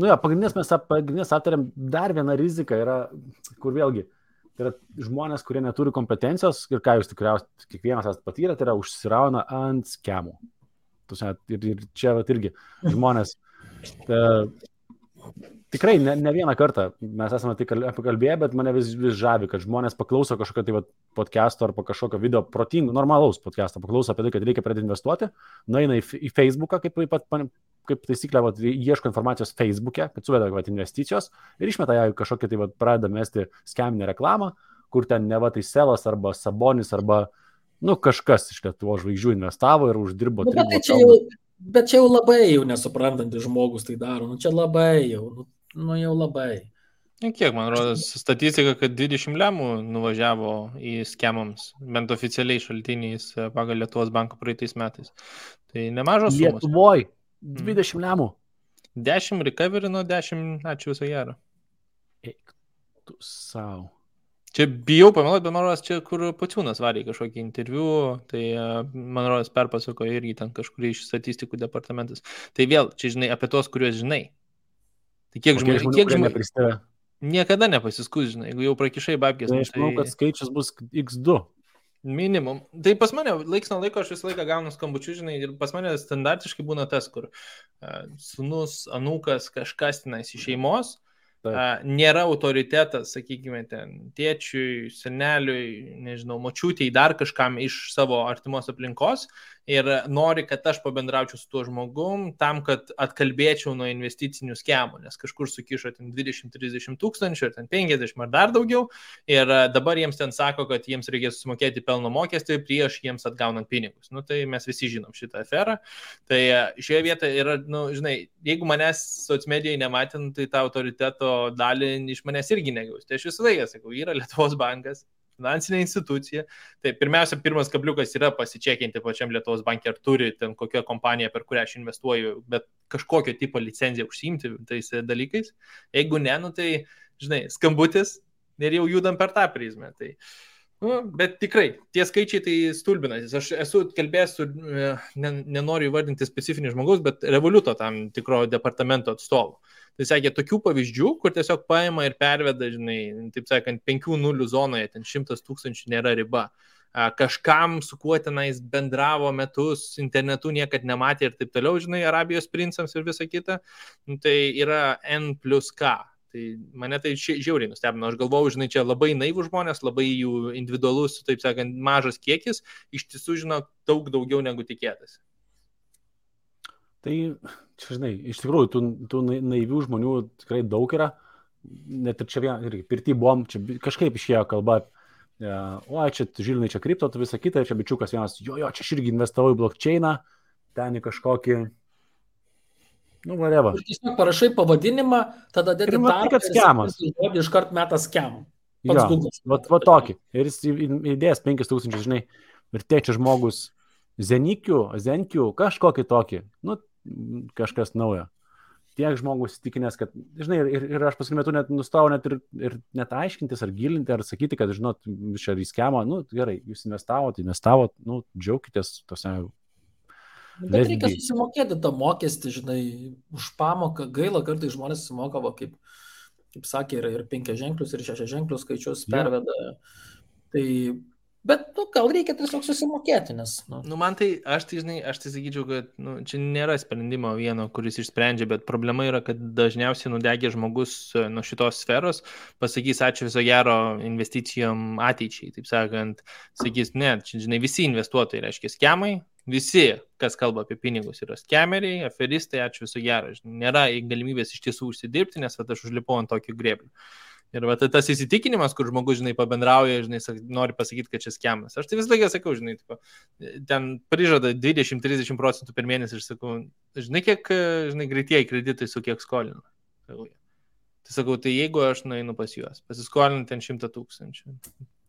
[SPEAKER 2] Nu jo, pagrindinės aptariam, dar viena rizika yra, kur vėlgi, tai yra žmonės, kurie neturi kompetencijos ir ką jūs tikriausiai kiekvienas esate patyrę, tai yra užsirauna ant skemų. Ir čia irgi žmonės tikrai ne vieną kartą mes esame tai pakalbėję, bet mane vis žavi, kad žmonės paklauso kažkokio tai podcast'o arba kažkokio video protingų, normalaus podcast'o, paklauso apie tai, kad reikia pradėti investuoti, nueina į Facebooką, kaip taisyklė, ieško informacijos Facebook'e, kad suveda investicijos ir išmeta ją kažkokią tai pradeda mesti skeminę reklamą, kur ten neva tai Selas arba Sabonis arba kažkas iš Lietuvos žvaigždžių investavo ir uždirbo.
[SPEAKER 3] Bet čia jau labai jau nesuprantantis žmogus tai daro, čia labai jau, jau labai.
[SPEAKER 4] Kiek, man rodos, statistika, kad 20 lemų nuvažiavo į skemams, bent oficialiai šaltiniais pagal Lietuvos banko praeitais metais. Tai nemažos sumos.
[SPEAKER 2] Lietuvoj 20 lemų.
[SPEAKER 4] 10 recoverino, 10 ačiū viso gero.
[SPEAKER 2] Eik tu savo.
[SPEAKER 4] Čia bijau pameluoti, bet man rodos, čia kur Pociūnas varė kažkokį interviu, tai man rodos perpasako irgi ten kažkurį iš statistikų departamentas. Tai vėl, čia žinai, apie tos, kuriuos žinai. Tai kiek žmonių niekada nepasiskus, žinai, jeigu jau prakišai babkės.
[SPEAKER 2] Tai aš manau, kad skaičius bus X2.
[SPEAKER 4] Minimum. Tai pas mane laiks nuo laiko aš visą laiką gaunu skambučių, žinai, ir pas mane standartiškai būna tas, kur sūnus, anūkas, kažkas tenais iš šeimos, nėra autoritetas, sakykime, ten tėčiui, seneliui, nežinau, močiutei, dar kažkam iš savo artimos aplinkos ir nori, kad aš pabendraučiau su tuo žmogum tam, kad atkalbėčiau nuo investicinių skemų, nes kažkur sukišo ten 20-30 tūkstančių, ar ten 50 ar dar daugiau ir dabar jiems ten sako, kad jiems reikės sumokėti pelno mokestį prieš jiems atgaunant pinigus. Nu, tai mes visi žinom šitą aferą. Tai šioje vietoje yra, žinai, jeigu manęs socmedijai nematint, tai tą autoriteto dalį iš manęs irgi negaus. Tai aš visą laiką sakau, yra Lietuvos bankas, finansinė institucija. Tai pirmiausia, pirmas kabliukas yra pasičekinti pačiam Lietuvos banke, ar turi ten kokią kompaniją, per kurią aš investuoju, bet kažkokio tipo licenciją užsiimti tais dalykais. Jeigu ne, tai, žinai, skambutis ir jau judam per tą prizmę. Tai, bet tikrai, tie skaičiai tai stulbinantis. Aš esu kalbėjęs su, nenoriu įvardinti specifinį žmogaus, bet Revoluto tam tikro departamento atstovų. Tai sakė, tokių pavyzdžių, kur tiesiog paima ir perveda, žinai, taip sakant, 5-0 zonoje, ten 100 tūkstančių nėra riba. Kažkam, su kuo tenais bendravo metus, internetu niekad nematė ir taip toliau, žinai, Arabijos princams ir visa kita. Tai yra N+K. Tai mane tai žiauriai nustebino. Aš galvojau, žinai, čia labai naivų žmonės, labai jų individualus, taip sakant, mažas kiekis, iš tiesų žino daug daugiau negu tikėtasi.
[SPEAKER 2] Tai, čia, žinai, iš tikrųjų, tų naivių žmonių tikrai daug yra. Net ir čia irgi pirty buvom, čia kažkaip išėjo kalba, čia žilinai, čia kripto, tu visą kitą, čia bičiukas vienas, jo, čia aš irgi investavau į blockchainą, ten į kažkokį, whatever.
[SPEAKER 3] Ir tiesiog parašai pavadinimą, tada dedi
[SPEAKER 2] darbą,
[SPEAKER 3] iškart metas skemą.
[SPEAKER 2] Va tokį. Ir jis įdėjęs 5 tūkstančius, žinai, ir tėčia žmogus Zenkių, kažkokį tokį, nu, kažkas naujo. Tiek žmogus įtikinęs, kad, žinai, ir aš paskui metu net nustojau net ir net aiškintis ar gilinti, ar sakyti, kad, žinot, čia riskiamo, nu, gerai, jūs investavot, nu, džiaukitės tose.
[SPEAKER 3] Bet reikia susimokėti tą mokestį, žinai, už pamoką. Gaila, kartais žmonės sumoka, kaip sakė, ir 5 ženklius, ir 6 ženklius skaičius perveda. Tai, bet, nu, gal reikia tiesiog susimokėti, nes...
[SPEAKER 4] Nu, man tai, aš tai sakyčiau, kad čia nėra sprendimo vieno, kuris išsprendžia, bet problema yra, kad dažniausiai nudegė žmogus nuo šitos sferos, pasakys ačiū viso gero investicijom ateičiai, taip sakant, sakys, ne, čia, žinai, visi investuotojai, reiškia, skemai, visi, kas kalba apie pinigus, yra skemeriai, aferistai, ačiū viso gero, nėra galimybės iš tiesų užsidirbti, nes aš užlipau ant tokio grėblio. Ir va, tas įsitikinimas, kur žmogus, žinai, pabendrauja, žinai, nori pasakyti, kad čia skemas. Aš tai visą laiką sakau, žinai, ten prižada 20-30% per mėnesį ir sakau, žinai, kiek, žinai, greitieji kreditai su kiek skolinu. Tai sakau, tai jeigu aš nueinu pas juos, pasiskolinu ten 100 000,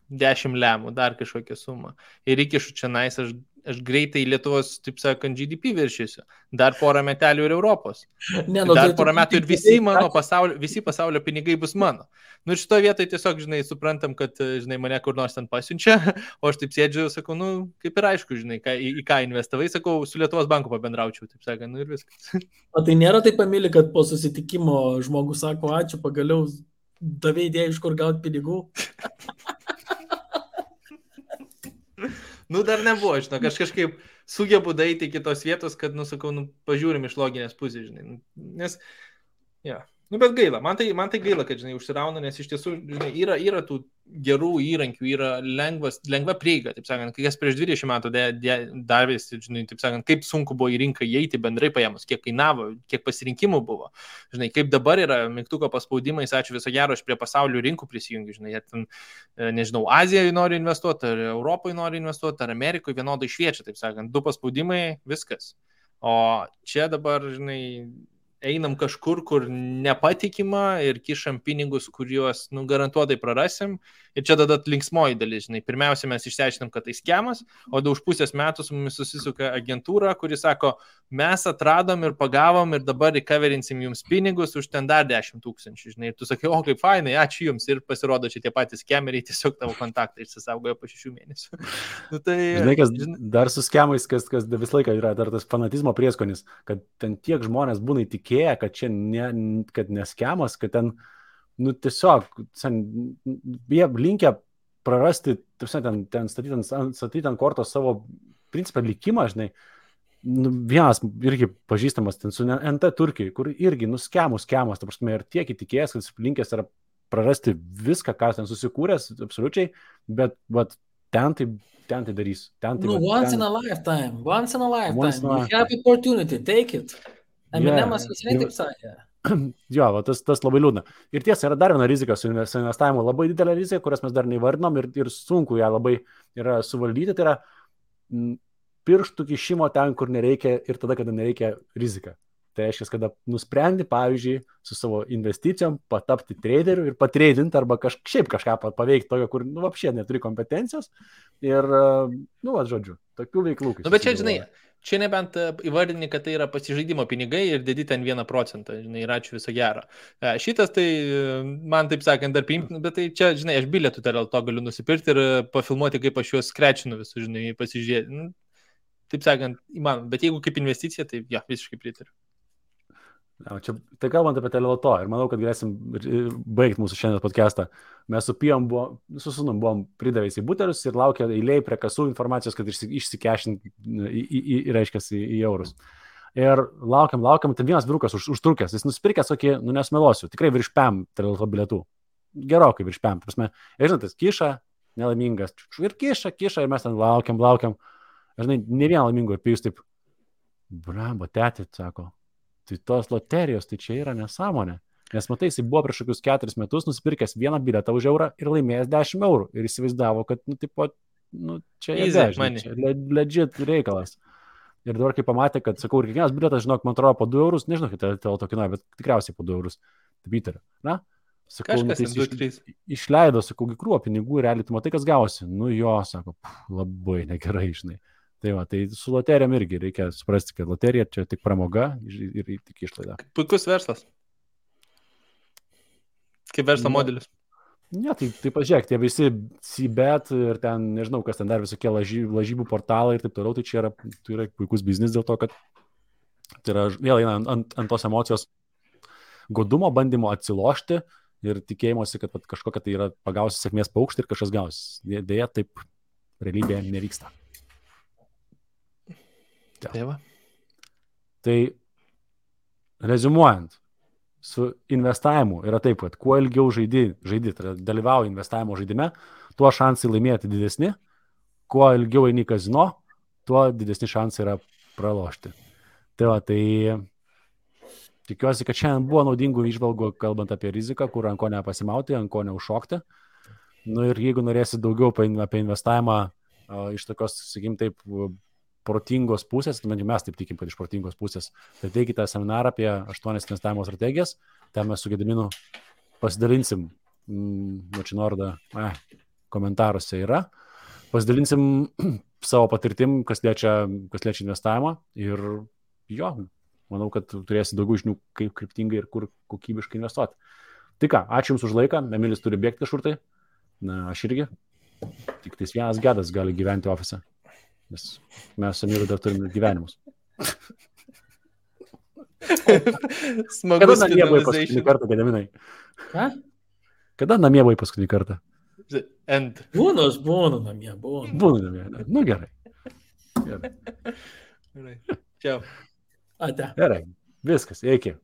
[SPEAKER 4] 10 lemų, dar kažkokią sumą ir įkišu čia nais, aš greitai Lietuvos, taip sakant, GDP viršysiu. Dar porą metelių ir Europos. Dar porą metų ir visi pasaulio pinigai bus mano. Nu ir šitoje vietoje tiesiog, žinai, suprantam, kad, žinai, mane kur nors ten pasiunčia, o aš taip sėdžiu, sakau, nu, kaip ir aišku, žinai, į ką investavai, sakau, su Lietuvos banku pabendraučiau, taip sakant, nu ir viskas.
[SPEAKER 3] O tai nėra taip pamili, kad po susitikimo žmogus sako, ačiū, pagaliau davė idėją, iš kur gauti pinigų.
[SPEAKER 4] Nu, dar nebuvo, žinok, aš kažkaip sugebu daeiti iki tos vietos, kad, nu, sakau, nu, pažiūrim iš loginės pusės, žinai, nes, ja, nu, bet gaila, man tai gaila, kad, žinai, užsirauna, nes iš tiesų, žinai, yra tų gerų įrankių, yra lengva prieiga, taip sakant, kai kas prieš 20 metų davėsi, žinai, taip sakant, kaip sunku buvo į rinką įeiti bendrai paėmus, kiek kainavo, kiek pasirinkimų buvo, žinai, kaip dabar yra mygtuko paspaudimais, ačiū viso gero, aš prie pasaulio rinkų prisijungiu, žinai, ten, nežinau, Azijoje nori investuoti, ar Europoje nori investuoti, ar Amerikoje vienodai šviečia, taip sakant, 2 paspaudimai, viskas. O čia dabar, žinai, einam kažkur, kur nepatikima ir kišam pinigus, kuriuos, nu, garantuotai prarasim. Ir čia tada linksmoji dalis, žinai. Pirmiausia, mes išsiaiškinam, kad tai skemas, o už pusės metų su mumis susisuka agentūra, kuri sako, mes atradom ir pagavom ir dabar recoverinsim jums pinigus už ten dar 10 000, žinai. Ir tu sakai, o kaip fainai, ačiū jums. Ir pasirodo, čia tie patys skemeriai tiesiog tavo kontaktą išsisaugojo po 6 mėnesių. Nu, tai,
[SPEAKER 2] žinai, kas dar su skemais, kas vis laiką yra dar tas fanatizmo prieskonis, kad ten tiek žmonės būna įtikėję, kad čia kad neskemas, kad ten, nu, tiesiog jie linkę prarasti, ten statyti ant kortos savo principą likimą, žinai. Nu, vienas irgi pažįstamas ten su NT Turkijai, kur irgi, nu, skemas, ta prasme, ir tiek įtikėjęs, kad linkęs yra prarasti viską, ką ten susikūręs, absoliučiai, bet ten tai darys.
[SPEAKER 3] Once in a lifetime. You have opportunity, take it. Eminemas visai taip sakė.
[SPEAKER 2] Jo, tas labai liūdna. Ir tiesa, yra dar viena rizika su investavimu, labai didelė rizika, kurias mes dar neįvardinom ir sunku ją labai yra suvaldyti, tai yra pirštų kišimo ten, kur nereikia ir tada, kada nereikia rizika. Tai reiškia, kada nusprendi, pavyzdžiui, su savo investicijom patapti traderiu ir patreidinti arba šiaip kažką paveikti tokio, kur, nu, apšiai neturi kompetencijos ir, nu, žodžiu, tokių veiklų.
[SPEAKER 4] Nu, bet čia, žinai, čia nebent įvardini, kad tai yra pasižaidimo pinigai ir dedi ten 1%, žinai, ir ačiū viso gero. Šitas tai, man taip sakant, dar priimtina, bet tai čia, žinai, aš bilietų dėl to galiu nusipirkti ir pafilmuoti, kaip aš juos skrečinu visus, žinai, pasižiūrėti. Nu, taip sakant, įmanoma, bet jeigu kaip investicija, tai ja, visiškai pritariu.
[SPEAKER 2] Čia, tai kalbant apie teleloto ir manau, kad galėsim baigti mūsų šiandien podcastą. Mes su Pijom su sūnum buvom pridavęs į butelius ir laukia eilėj prie kasų informacijos, kad išsikešint reiškia į eurus. Ir laukiam, tai vienas vyrukas užtrukęs, jis nusipirkęs tokį, nu nesmelosiu, tikrai virš PM teleloto bilietų. Gerokai virš PM, prasme. Ir žinot, tas kiša, nelaimingas, ir kiša, ir mes ten laukiam. Ir žinai, ne vieną laimingų, ir Pijus taip, bramba, tėti, sako. Tai tos loterijos, tai čia yra nesąmonė. Nes matai, jis buvo prieš kokius 4 metus nusipirkęs vieną bilietą už eurą ir laimėjęs 10 eurų. Ir įsivaizdavo, kad, nu, tipo, nu, čia legit reikalas. Ir dabar, kai pamatė, kad, sakau, ir kiekvienas bilietas, žinok, man atrodo, po 2 eurus, nežinau, kiek teleloto kainuoja, bet tikriausiai po 2 eurus. Taip įtariu. Na, Sakau, nu,
[SPEAKER 4] Kažkas,
[SPEAKER 2] tai
[SPEAKER 4] 2-3.
[SPEAKER 2] išleido, sakau, krūvą pinigų, realiai tu matai, kas gausi. Nu jo, sako, labai negerai, žinai. Tai va, tai su loterijom irgi reikia suprasti, kad loterija čia tik pramoga ir tik išlaida.
[SPEAKER 4] Puikus verslas. Kaip verslo modelis.
[SPEAKER 2] Ne, tai pažiūrėk, tie visi CBET ir ten, nežinau, kas ten dar visokie lažybų portalai ir taip toliau, tai čia yra puikus biznis dėl to, kad tai yra vėl eina ant tos emocijos godumo, bandymo atsilošti ir tikėjimuose, kad kažkokia tai yra pagausi sėkmės paukštį ir kažkas gausi. Deja, taip realybėje nevyksta.
[SPEAKER 4] Ja.
[SPEAKER 2] Tai reziumuojant, su investavimu yra taip, kad kuo ilgiau žaidi, tai dalyvauji investavimo žaidime, tuo šansai laimėti didesni, kuo ilgiau eini kazino, tuo didesni šansai yra pralošti. Tai va, tai tikiuosi, kad šiandien buvo naudingų įžvalgų, kalbant apie riziką, kur ant ko nepasimauti, ant ko neužšokti. Nu ir jeigu norėsi daugiau apie investavimą iš tokios, sakykim, taip, protingos pusės, mes taip tikim, kad iš protingos pusės, tai teikite seminarą apie 8 investavimo strategijas, ten mes su Gediminu pasidalinsim, Mačinorda komentaruose yra, pasidalinsim savo patirtim, kas liečia investavimą ir jo, manau, kad turėsi daugiau žinių, kaip kryptingai ir kur kokybiškai investuoti. Tai ką, ačiū Jums už laiką, Emilis turi bėgti kažkur tai, na, aš irgi, tik tais vienas gedas gali gyventi ofise, nes mes su Emilu dar turime gyvenimus.
[SPEAKER 4] Smagus
[SPEAKER 2] Kada namie buvai paskutinį kartą, Gediminai?
[SPEAKER 3] Ką?
[SPEAKER 2] Kada namie buvai paskutinį kartą?
[SPEAKER 3] Būnu, aš būnu namie, būnu.
[SPEAKER 2] Būnu namie, nu gerai.
[SPEAKER 4] Čiau.
[SPEAKER 3] Ate.
[SPEAKER 2] Gerai, viskas, iki.